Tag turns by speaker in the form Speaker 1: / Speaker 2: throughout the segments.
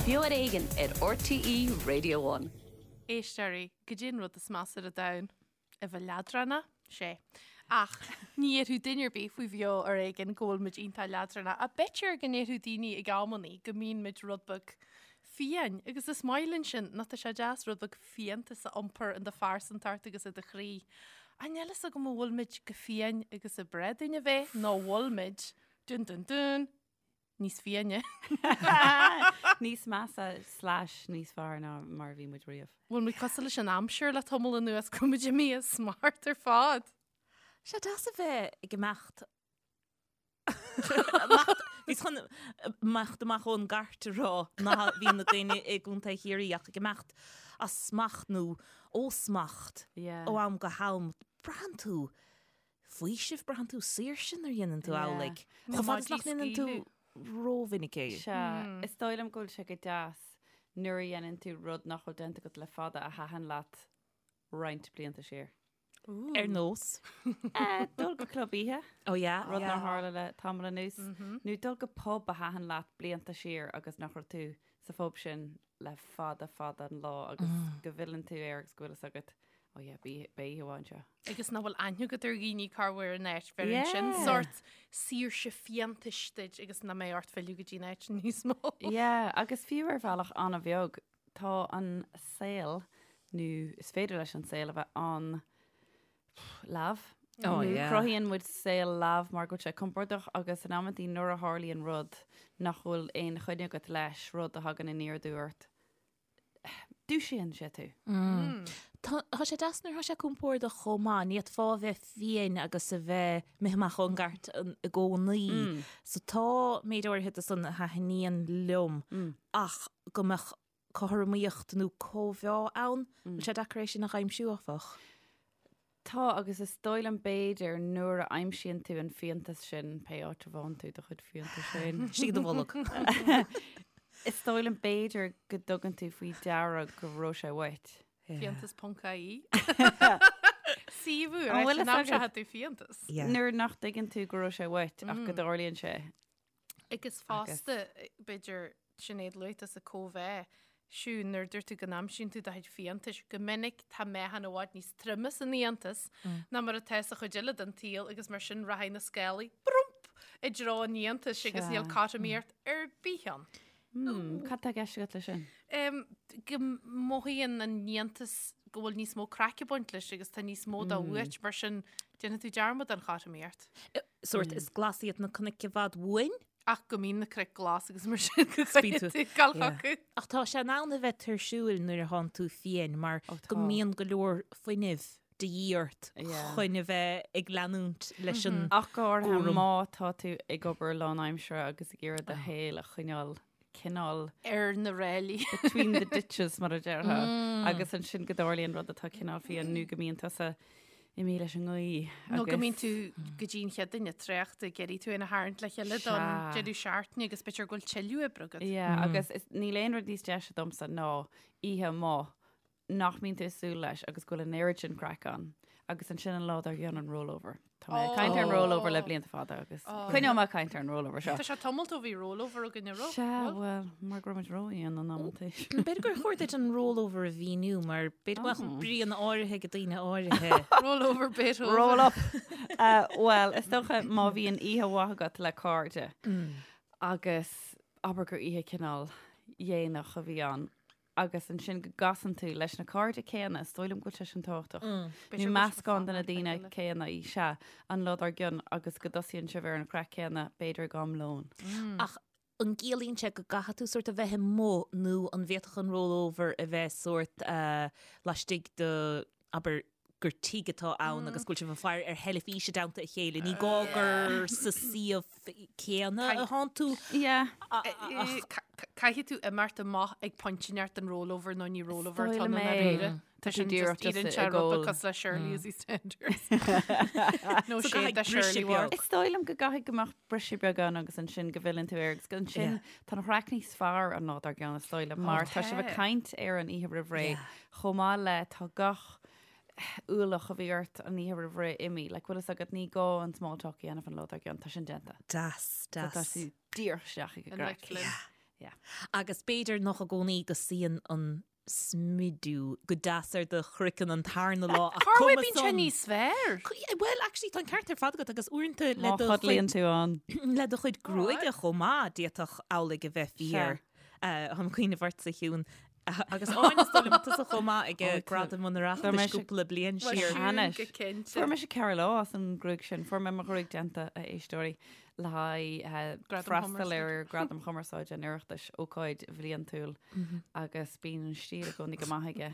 Speaker 1: Beo ar Éigean ar RTÉ Radio One.
Speaker 2: Éisteoirí, goidé an rud is measa ar an domhan? A bheith leadránach? Sé. Ach ní dhéarfadh duine ar bith faoi Bheo ar Éigean go bhfuil muid iontach leadránach. Ach b'fhéidir go ndéarfadh daoine ag amannaí go mbíonn muid rud beag fiáin. Agus is maith linn sin, nó tá sé deas rud beag fiántas a iompar in do phearsantacht agus i do chroí. Ach níl fhios agam an bhfuil muid chomh fiáin agus ab bhreá dúinn a bheith, nó an bhfuil muid, dun dun dun, níos fiáine.
Speaker 3: Níos measa slash níos fearr ná mar a bhí muid riamh.
Speaker 2: Bhfuil muid cosúil leis an aimsir le tamall anuas go bhfuil muid imithe as smacht ar fad.
Speaker 4: Sé deas a bheith ag imeacht Bhíos chun imeacht amach ón gcairt a rá ná bhí na daoine i gContae Chiarraí ach ag imeacht as smacht nó ó smacht ó am go ham. Braitheann tú faoiseamh, braitheann tú saoirse nuair a dhéanann tú amhlaidh. Chomh fada is nach ndéanann tú rómhinic é.
Speaker 3: Sea, is dóigh liom go bhfuil sé go deas nuair a dhéanann tú rud nach bhfuil déanta agat le fada a thaitin leat roinnt blianta siar.
Speaker 4: Ar nós?
Speaker 3: Dul go club oíche.
Speaker 4: Oh yeah.
Speaker 3: Rud nár tharla le tamall anuas. Nó dul go pub a thaitin leat blianta siar agus nach raibh tú sa phub sin le fada fada an lá agus go bhfilleann tú air agus go bhfuil fhios agat, oh yeah, beidh oíche mhaith anseo.
Speaker 2: Agus nach bhfuil aithne agat ar dhaoine corruair in áit, bheireann sin sórt saoirse fiántais duit agus nach mbeidh ort filleadh go dtí an áit níos mó.
Speaker 3: Yeah, agus fiú ar bhealach an-bheag, tá an saol, nó is féidir leis an saol a bheith an leamh.
Speaker 4: Oh, yeah.
Speaker 3: Cruthaíonn muid saol leamh mar go bhfuil sé compordach agus in amantaí nuair a tharlaíonn rud nach bhfuil aon choinne agat leis, rud a thagann aniar aduaidh ort, dúisíonn sé tú.
Speaker 4: Tá tá sé deas nuair atá sé compordach chomh maith, ní fhéadfá a bheith fiáin agus a bheith imithe amach ón gcairt i gcónaí. So tá méid áirithe de san a thaitníonn liom ach go mbeadh cothromaíocht nó cóimheá ann. Bhfuil sé deacair é sin a aimsiú, áfach?
Speaker 3: Tá, agus is dóigh liom b'fhéidir nuair a aimsíonn tú an fiántas sin, pé áit a bhfaigheann tú do chuid fiántais féin.
Speaker 4: Istigh i do bholg.
Speaker 3: Is dóigh liom b'fhéidir go dtugann tú faoi deara go raibh sé uait.
Speaker 2: Fiántas.ie. Suíomh úr,
Speaker 3: An bhfuil
Speaker 2: an
Speaker 3: fhios
Speaker 2: am seo
Speaker 3: agat?
Speaker 2: tú fiántas.
Speaker 3: Nuair nach dtuigeann tú go raibh sé uait ach go dtarlaíonn sé.
Speaker 2: Agus fosta, b'fhéidir, Sinéad luaigh tusa cóimheá, Siún, nuair a dúirt tú go n-aimsíonn tú do chuid fiántais, go minic tá meáchan i bhfad níos troime san fhiántas ná mar atá sa chuid eile den tsaol agus mar sin rachaidh na scálaí, brump, i dtreo an fhiántais agus níl cothromaíocht ar bith ann.
Speaker 3: Cad tá i gceist agat leis sin?
Speaker 2: Go mothaíonn an fhiántas go bhfuil níos mó craic ag baint leis agus tá níos mó dó uait, mar sin déanfaidh tú dearmad den chothromaíocht.
Speaker 4: Sórt, is glas iad na cnoic i bhfad uainn.
Speaker 2: Ach go mbíonn na cnoic glas agus mar sin go gcaithfidh tú dul chucu.
Speaker 4: Ach tá sé in ann a bheith tuirsiúil nuair a thánn tú fiáin mar go mbíonn go leor fuinnimh de dhíth ort chun a bheith ag leanúint leis an
Speaker 3: Ach go háirithe
Speaker 4: gcúram.
Speaker 3: má tá tú ag obair lánaimseartha agus ag iarraidh do shaol a choinneáil cineál
Speaker 2: ar na ráillí.
Speaker 3: between the ditches mar a déarfá agus ansin go dtarlaíonn rud atá cineál fiáin nó go mbíonn tusa imithe leis an ngaoth
Speaker 2: Nó go mbíonn tú go dtí an chéad duine traochta ag iarraidh tú féin a tharraingt le chéile don deireadh seachtaine agus b'fhéidir go bhfuil tuilleadh oibre agat.
Speaker 3: Yeah, agus níl aon rud níos deise domsa ná oíche amuigh nach mbíonn tú ag súil leis agus go bhfuil an oiread sin craic ann agus ansin an lá dár gcionn an rollover. Tá mé ag caint ar an rollover le blianta fada agus coinneoidh mé ag caint ar an rollover seo.
Speaker 2: Tá sé tamall ó bhí rollover againn an raibh?
Speaker 3: Sea, bhuel, mar go raibh muid rófhiáin in amantaí.
Speaker 4: B'fhéidir gur chóir duit an rollover a mhíniú mar b'fhéidir go mbeadh bríonna áirithe ag daoine áirithe.
Speaker 2: Rollover Beethoven.
Speaker 3: Roll up! Bhuel, is dócha má bhíonn oíche mhaith agat le cairde agus abair gur oíche cineál dhéanach a bhí ann, agus ansin go gcasann tú leis na cairde céanna, is dóigh liom go bhfuil sé sin tábhachtach. Nó meascán de na daoine céanna, sea, an lá dár gcionn agus go dtosaíonn sibh ar an chraic céanna, b'fhéidir ag am lóin.
Speaker 4: Ach an gciallaíonn sé go gcaithfidh tú sórt a bheith amuigh nó an bhféadfadh an rollover a bheith sórt laistigh de, abair, gur tigh atá ann agus go bhfuil sibh ag faire ar theilifís i dteannta a chéile. Ní gá gur sa suíomh céanna a thánn tú.
Speaker 2: Caithfidh tú imeacht amach ag pointe inteacht den rollover nó ní rollover atá ann i ndáiríre. Tá sin just iarrann sé rud beag cosúil le Shirley as EastEnders. Nó
Speaker 4: So
Speaker 2: sé
Speaker 4: caithfidh
Speaker 2: de
Speaker 4: briseadh
Speaker 2: Shirley
Speaker 4: beag.
Speaker 2: Ward.
Speaker 3: Is dóigh liom go gcaithfidh go mbeadh briseadh beag ann agus ansin go bhfilleann tú air agus ansin tá an chraic níos fearr an lá dár gcionn is dóigh liom mar tá sibh ag caint ar an oíche roimh ré Chomh maith le tá gach ualach a bhí ort an oíche roimh ré imithe, like bhfuil fhios agat ní gá an small talk a dhéanamh an lá dár gcionn, tá sin déanta.
Speaker 4: Deas,
Speaker 3: So tá
Speaker 4: deas.
Speaker 3: tú díreach isteach ag an
Speaker 2: An
Speaker 3: gcraic.
Speaker 2: Flynn.
Speaker 3: Yeah.
Speaker 4: Agus b'fhéidir nach i gcónaí go suíonn an smidiú go deas ar do chraiceann an tarna lá ach
Speaker 2: Cá
Speaker 4: cuma
Speaker 2: bhfuil bíonn sé
Speaker 4: san.
Speaker 2: níos fearr?
Speaker 4: Bhuel, actually, tá an ceart ar fad agat agus uaireanta le
Speaker 3: Má
Speaker 4: do
Speaker 3: chodlaíonn
Speaker 4: chuid
Speaker 3: tú ann.
Speaker 4: le do chuid gruaige chomh maith, d'fhéadfadh amhlaidh a bheith fíor. Táim ag cuimhneamh ortsa, a Shiún, agus Áine is dóigh liom tusa chomh maith ag Gradam an Oireachtais cúpla bliain siar.
Speaker 3: Anois.
Speaker 2: Go cinnte.
Speaker 3: Fuair mise 4 lá as an ngruaig sin. Fuair mé mo ghruaig déanta, a éisteoirí, le haghaidh
Speaker 2: Gradam
Speaker 3: freastal
Speaker 2: Chumarsáide.
Speaker 3: ar Gradam Chumarsáide an Oireachtais, ócáid bhliantúil, agus bíonn an stíl i gcónaí go maith aige.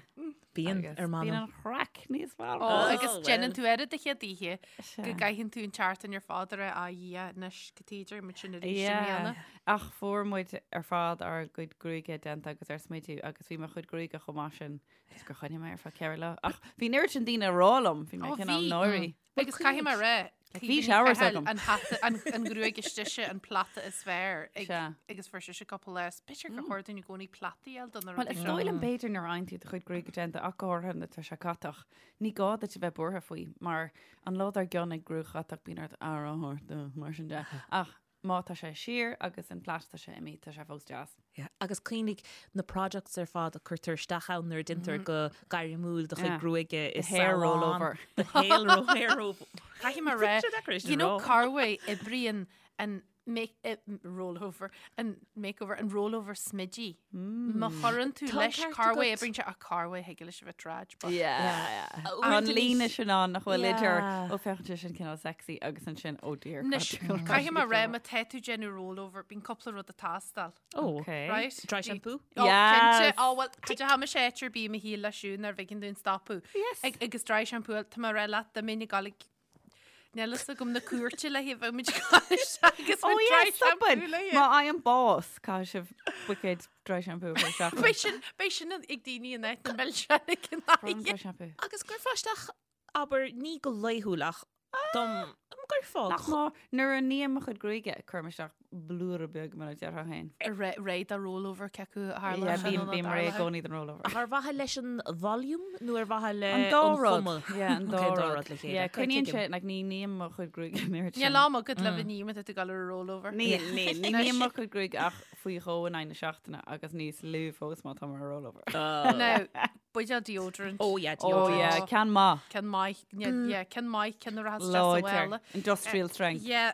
Speaker 4: Bíonn,
Speaker 3: Agus
Speaker 4: ar m'anam.
Speaker 3: Bíonn an chraic níos fearr.
Speaker 2: Ó, agus
Speaker 4: well.
Speaker 2: déanann tú air do chéad oíche
Speaker 3: Sea.
Speaker 2: go gcaitheann tú an tseachtain ar fad ar a Dhia anois go tíidir muid sin arís i
Speaker 3: Yeah.
Speaker 2: mbliana.
Speaker 3: Ach fuair muid ar fad ár gcuid gruaige déanta agus ár smidiú agus bhí mo chuid gruaige chomh maith sin just gur choinnigh mé ar feadh 4 lá. Ach bhí an oiread sin daoine ag rá liom, bhí mé
Speaker 2: Ó,
Speaker 3: cineál
Speaker 2: bhí.
Speaker 3: náirí.
Speaker 2: Agus caithfidh mé rá,
Speaker 3: Bhí showers agam.
Speaker 2: An hata, an an ghruaig istigh an plata is fearr ag,
Speaker 3: Sea.
Speaker 2: agus fuair sise cúpla lá. B'fhéidir gur chóir dúinn i gcónaí plataí a fháil do na
Speaker 3: Well,
Speaker 2: rudaí
Speaker 3: is
Speaker 2: seo.
Speaker 3: dóigh liom b'fhéidir nuair a fhaigheann tú do chuid gruaige déanta ach go háirithe nuair atá sé catach, ní gá duit a bheith buartha faoi mar an lá dár gcionn ag gruaig chatach bíonn ort aire a thabhairt dó, mar sin de. Ach má tá sé siar agus an plait tá sé imithe, tá sé fós deas.
Speaker 4: Yeah. Agus cuimhnigh na products ar fad a cuirtear isteach ann nuair a déantar go gairmiúil do chuid
Speaker 3: Yeah.
Speaker 4: gruaige i
Speaker 3: The hair
Speaker 4: salon.
Speaker 3: rollover.
Speaker 4: The hair ro- hair rollover.
Speaker 2: Caithfidh mé rá,
Speaker 4: Sé deacair é sin
Speaker 2: you know
Speaker 4: a rá.
Speaker 2: Carway oibríonn an make eh, rollover, an makeover, an rollover smidí. Má chuireann tú
Speaker 4: Tá an
Speaker 2: leis
Speaker 4: ceart
Speaker 2: Carway
Speaker 4: agat.
Speaker 2: oibríonn sé ach Carway thig leis a bheith trad. but-
Speaker 3: Yeah.
Speaker 4: Uaireanta
Speaker 3: Tá an
Speaker 4: níos-
Speaker 3: líne sin ann nach bhfuil idir
Speaker 4: Yeah.
Speaker 3: ó féachann sé sin cineál sexy agus ansin oh dear.
Speaker 2: Anois, caithfidh mé rá má tá tú déanamh rollover, bíonn cúpla rud ag teastáil.
Speaker 4: Oh,
Speaker 3: Okay.
Speaker 2: Right?
Speaker 4: Dry
Speaker 2: Bhí-
Speaker 4: shampoo?
Speaker 2: Oh,
Speaker 3: Yes.
Speaker 2: cinnte. Oh, well, cad é tha mise áit ar bith i mo shaol le Siún ar bhfeiceann dúinn stopadh.
Speaker 3: Yes.
Speaker 2: Ag, agus dry shampoo, tá mé rá leat, dá mbeinn ag gabháil ag Níl fhios agam na cúirte le haghaidh bheadh muid ag gabháil isteach agus
Speaker 3: Oh
Speaker 2: muid
Speaker 3: yeah,
Speaker 2: dry
Speaker 3: stop
Speaker 2: shampoo
Speaker 3: it.
Speaker 2: le
Speaker 3: Má fhaighim bás, caithfidh sibh buicéad dry shampoo a chur isteach.
Speaker 2: Beidh sin, beidh sin ag daoine in áit na milseáin ag an
Speaker 3: Brown dry
Speaker 2: aghaidh.
Speaker 3: shampoo.
Speaker 4: Agus gcuirfeá isteach abair ní go laethúil ach dom gcuirfeá
Speaker 3: Nach má nuair a ním mo chuid gruaige, cuirim isteach blúire beag mar a déarfá féin.
Speaker 2: Réidh do rollover cé acu a tharla
Speaker 3: Yeah,
Speaker 2: sin
Speaker 3: bím
Speaker 2: nó
Speaker 3: bím réidh i
Speaker 2: tarlaithe.
Speaker 3: gcónaí don rollover.
Speaker 4: Ach ar mhaithe leis an volume nó ar mhaithe le
Speaker 3: An dá rud.
Speaker 4: chuma?
Speaker 3: Yeah, an dá
Speaker 4: Okay,
Speaker 3: rud.
Speaker 4: rud le chéile.
Speaker 3: Yeah,
Speaker 4: Okay,
Speaker 3: coinníonn
Speaker 4: tuigim.
Speaker 3: sé, like, ní ním mo chuid gruaige an oiread sin.
Speaker 2: Níl am agat le bheith ním tú ag dul ar a rollover.
Speaker 3: Ní, ní, ní ním mo chuid gruaige ach faoi dhó in aghaidh na seachtaine agus níos lú fós má tá mar rollover.
Speaker 2: Now, buidéal deodorant.
Speaker 4: Oh yeah,
Speaker 3: Oh
Speaker 4: deodorant.
Speaker 3: yeah, ceann maith.
Speaker 2: Ceann maith, yeah, ceann maith, ceann a rachas isteach sa
Speaker 3: Láidir.
Speaker 2: bhaile.
Speaker 3: Industrial strength.
Speaker 2: Yeah,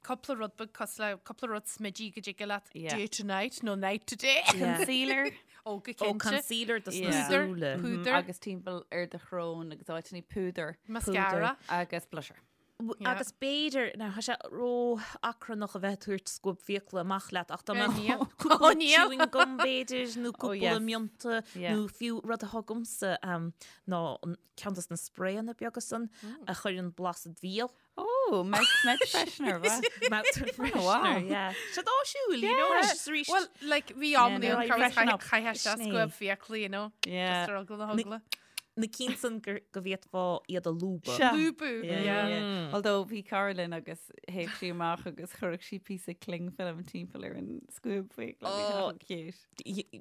Speaker 2: cúpla rud beag cosúil le cúpla rud smidí go dtig leat
Speaker 3: Yeah.
Speaker 2: day to night nó night to day.
Speaker 4: Yeah.
Speaker 3: Concealer.
Speaker 2: Ó go
Speaker 4: Ó
Speaker 2: cinnte.
Speaker 4: concealer dos na
Speaker 3: Yeah.
Speaker 4: súile.
Speaker 2: Púdar.
Speaker 3: Agus timpeall ar do shrón agus áiteanna púdar.
Speaker 2: Mascara.
Speaker 3: Agus blusher.
Speaker 2: Yeah.
Speaker 4: Agus b'fhéidir now tá sé ró-achrannach a bheith ag tabhairt scuab fiacla amach leat ach dá
Speaker 2: Eh,
Speaker 4: mbeadh
Speaker 2: níl.
Speaker 4: cúpla
Speaker 2: Ó, níl.
Speaker 4: chewing gum b'fhéidir nó cúpla
Speaker 3: yes.
Speaker 4: mionta
Speaker 3: Yeah.
Speaker 4: nó fiú rud atá agamsa um, ná an ceann dos na sprayanna beaga san a chuireann blas id bhéal.
Speaker 3: Oh, mouth, mouth freshener, right?
Speaker 4: Mouth freshener,
Speaker 3: wow.
Speaker 4: yeah. Sé áisiúil, you know,
Speaker 3: Yeah.
Speaker 4: anois is arís.
Speaker 2: Well, like, bhí am
Speaker 3: Yeah,
Speaker 2: ní
Speaker 3: no,
Speaker 2: an
Speaker 3: freshen
Speaker 2: chaith
Speaker 3: up.
Speaker 2: chaith sé
Speaker 4: Sin é.
Speaker 2: scuab fiacla, you know.
Speaker 3: Yeah.
Speaker 2: Just ar eagla na heagla.
Speaker 4: Na cinn san gur go bhféadfá iad a lúbadh.
Speaker 3: Sea.
Speaker 2: Lúbadh,
Speaker 3: Yeah,
Speaker 2: yeah.
Speaker 3: yeah. Although bhí cara linn agus théadh sí amach agus chuirfeadh sí píosa cling film timpeall ar an scuab fiacla. Bhí sé
Speaker 4: Oh.
Speaker 3: chomh cute.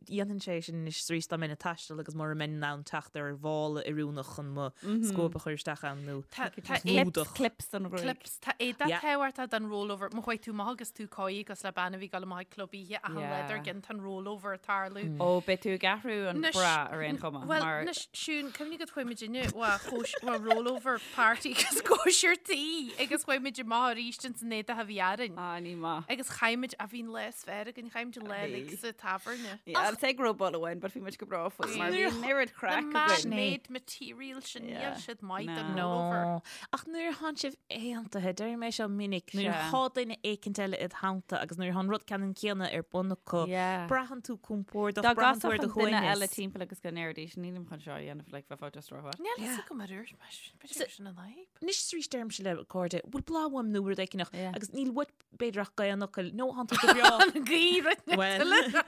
Speaker 4: Dhéanfainn sé sin anois is arís dá mbeinn ag taisteal agus mura mbeinn in ann teacht ar mhála oiriúnach chun mo scuab a chur isteach ann nó
Speaker 2: Tá tá
Speaker 4: just
Speaker 2: é-
Speaker 4: lúdach.
Speaker 3: Clips don ghruaig.
Speaker 2: Clips, tá éadaí
Speaker 4: Yeah.
Speaker 2: tábhachtach don rollover. Má chuaigh tú amach agus tú cóí agus le bean a bhí ag dul amach ag club oíche ach an
Speaker 3: Yeah.
Speaker 2: lá dár gcionn tá an rollover ag tarlú.
Speaker 3: Ó, beidh tú ag athrú an
Speaker 2: Anois-
Speaker 3: bra ar aon chuma.
Speaker 2: Well,
Speaker 3: mar
Speaker 2: anois, Siún, cuimhnigh go chuaigh muid inniu wa chóis wa rollover party agus cóisir tí agus chuaigh muid amach arís ins an éadach a bhí orainn.
Speaker 3: Ah, ní maith.
Speaker 2: Agus chaith muid a bhí an lá is fearr againn, chaith muid an lá
Speaker 3: Bhí.
Speaker 2: uilig sa tábhairne.
Speaker 3: Yeah, I'll say go raibh ball amháin, but bhí muid go breá faoi mar bhí
Speaker 2: Nuair-
Speaker 3: an oiread
Speaker 2: Na
Speaker 3: craic againn.
Speaker 2: man-made material sin níl
Speaker 3: Yeah.
Speaker 2: siad maith don
Speaker 3: No.
Speaker 2: rollover.
Speaker 4: No. Ach nuair atánn sibh aontaithe, deirim é seo minic, nuair
Speaker 3: Sea.
Speaker 4: atá duine éicint eile id theannta agus nuair atá an rud ceannann céanna ar bun acu,
Speaker 3: Yeah.
Speaker 4: braitheann tú compordach,
Speaker 3: Dá
Speaker 4: braitheann tú ar
Speaker 3: gcasfadh
Speaker 4: do
Speaker 3: an duine eile
Speaker 4: shuaimhneas.
Speaker 3: timpeall agus go ndéarfaidís, nílim chun seo a dhéanamh, like, bheifeá just ró-mhaith.
Speaker 2: Níl fhios agam ar dúirt mé sin, b'fhéidir sin an fhadhb.
Speaker 4: Anois is arís deirimse le cairde, bhfuil bláth uaim nó rud éigineach,
Speaker 3: Yeah.
Speaker 4: agus níl uait b'fhéidir ach dhá fhocal, nó thánn tú go breá.
Speaker 2: An gaoth rud
Speaker 4: Well.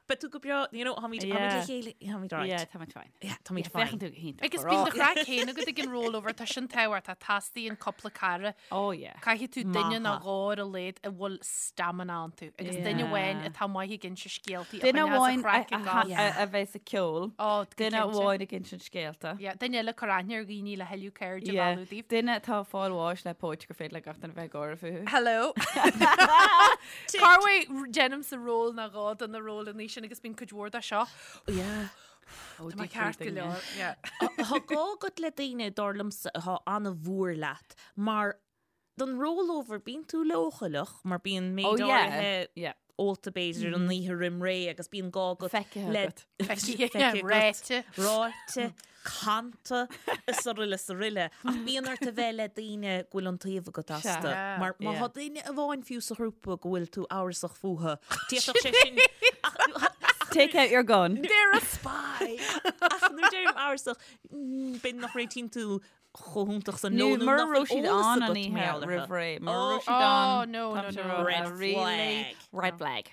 Speaker 4: Beidh tú go breá, you know, táimid táimid le chéile, táimid right.
Speaker 3: Yeah, táimid fine.
Speaker 4: Yeah, táimid fine.
Speaker 3: Féachann tú go hiontach.
Speaker 2: Agus bíonn do chraic féin agat ag an rollover, tá sin tábhachtach, teastaíonn cúpla cara.
Speaker 3: Oh yeah.
Speaker 2: Caithfidh tú duine nó dhó ar a laghad a bhfuil stamina iontu. Agus duine amháin atá maith ag inse scéaltaí a
Speaker 3: Duine
Speaker 2: choinneos
Speaker 3: amháin
Speaker 2: an chraic ag gabháil.
Speaker 3: a bheas ag ceol.
Speaker 2: Oh, go
Speaker 3: Duine
Speaker 2: cinnte.
Speaker 3: amháin ag insint scéalta.
Speaker 2: Yeah, duine eile ag cur aithne ar dhaoine le thuilleadh cairde a
Speaker 3: Yeah.
Speaker 2: mhealladh daoibh.
Speaker 3: Duine atá ag fáil bháis le póit gur féidir le gach duine bheith ag gáire fúthu.
Speaker 2: Hello. Corruair déanaimse ról nó dhó de na rólanna sin agus bíonn cuid mhór de seo.
Speaker 4: Yeah.
Speaker 2: Tá mé ceart go leor. Yeah.
Speaker 4: Tá gá agat le daoine dar liomsa atá an-mhór leat mar don rollover bíonn tú leochaileach mar bíonn méid
Speaker 3: Oh, yeah.
Speaker 4: áirithe
Speaker 3: Yeah.
Speaker 4: ólta b'fhéidir an oíche roim ré agus bíonn gá agat
Speaker 3: Feicthe
Speaker 4: le
Speaker 3: agat.
Speaker 2: Feicthe,
Speaker 4: Feicthe agat.
Speaker 2: ráite.
Speaker 4: ráite, canta, is araile is araile. Ach bíonn ort a bheith le daoine go bhfuil iontaoibh agat astu.
Speaker 3: Sea.
Speaker 4: Mar má
Speaker 3: Yeah.
Speaker 4: tá duine amháin fiú sa ghrúpa go bhfuil tú amhrasach fúthu, d'fhéadfadh sé sin
Speaker 3: Take out your gun.
Speaker 2: They're a spy.
Speaker 4: Ach nuair a deirim amhrasach, b'fhéidir nach réitíonn tú chomh hiontach san
Speaker 3: Nó
Speaker 4: leo nó
Speaker 3: mura
Speaker 4: nach
Speaker 3: raibh
Speaker 4: bhfuil
Speaker 3: siad
Speaker 4: eolas
Speaker 3: ann an
Speaker 4: agat
Speaker 3: oíche
Speaker 4: mar gheall orthu.
Speaker 3: roimh ré. Mura
Speaker 4: Oh,
Speaker 3: raibh siad
Speaker 2: oh,
Speaker 3: ann,
Speaker 2: no,
Speaker 3: tá
Speaker 2: no,
Speaker 3: sé
Speaker 2: no.
Speaker 3: rá,
Speaker 4: Red
Speaker 3: really
Speaker 4: flag.
Speaker 3: Red flag.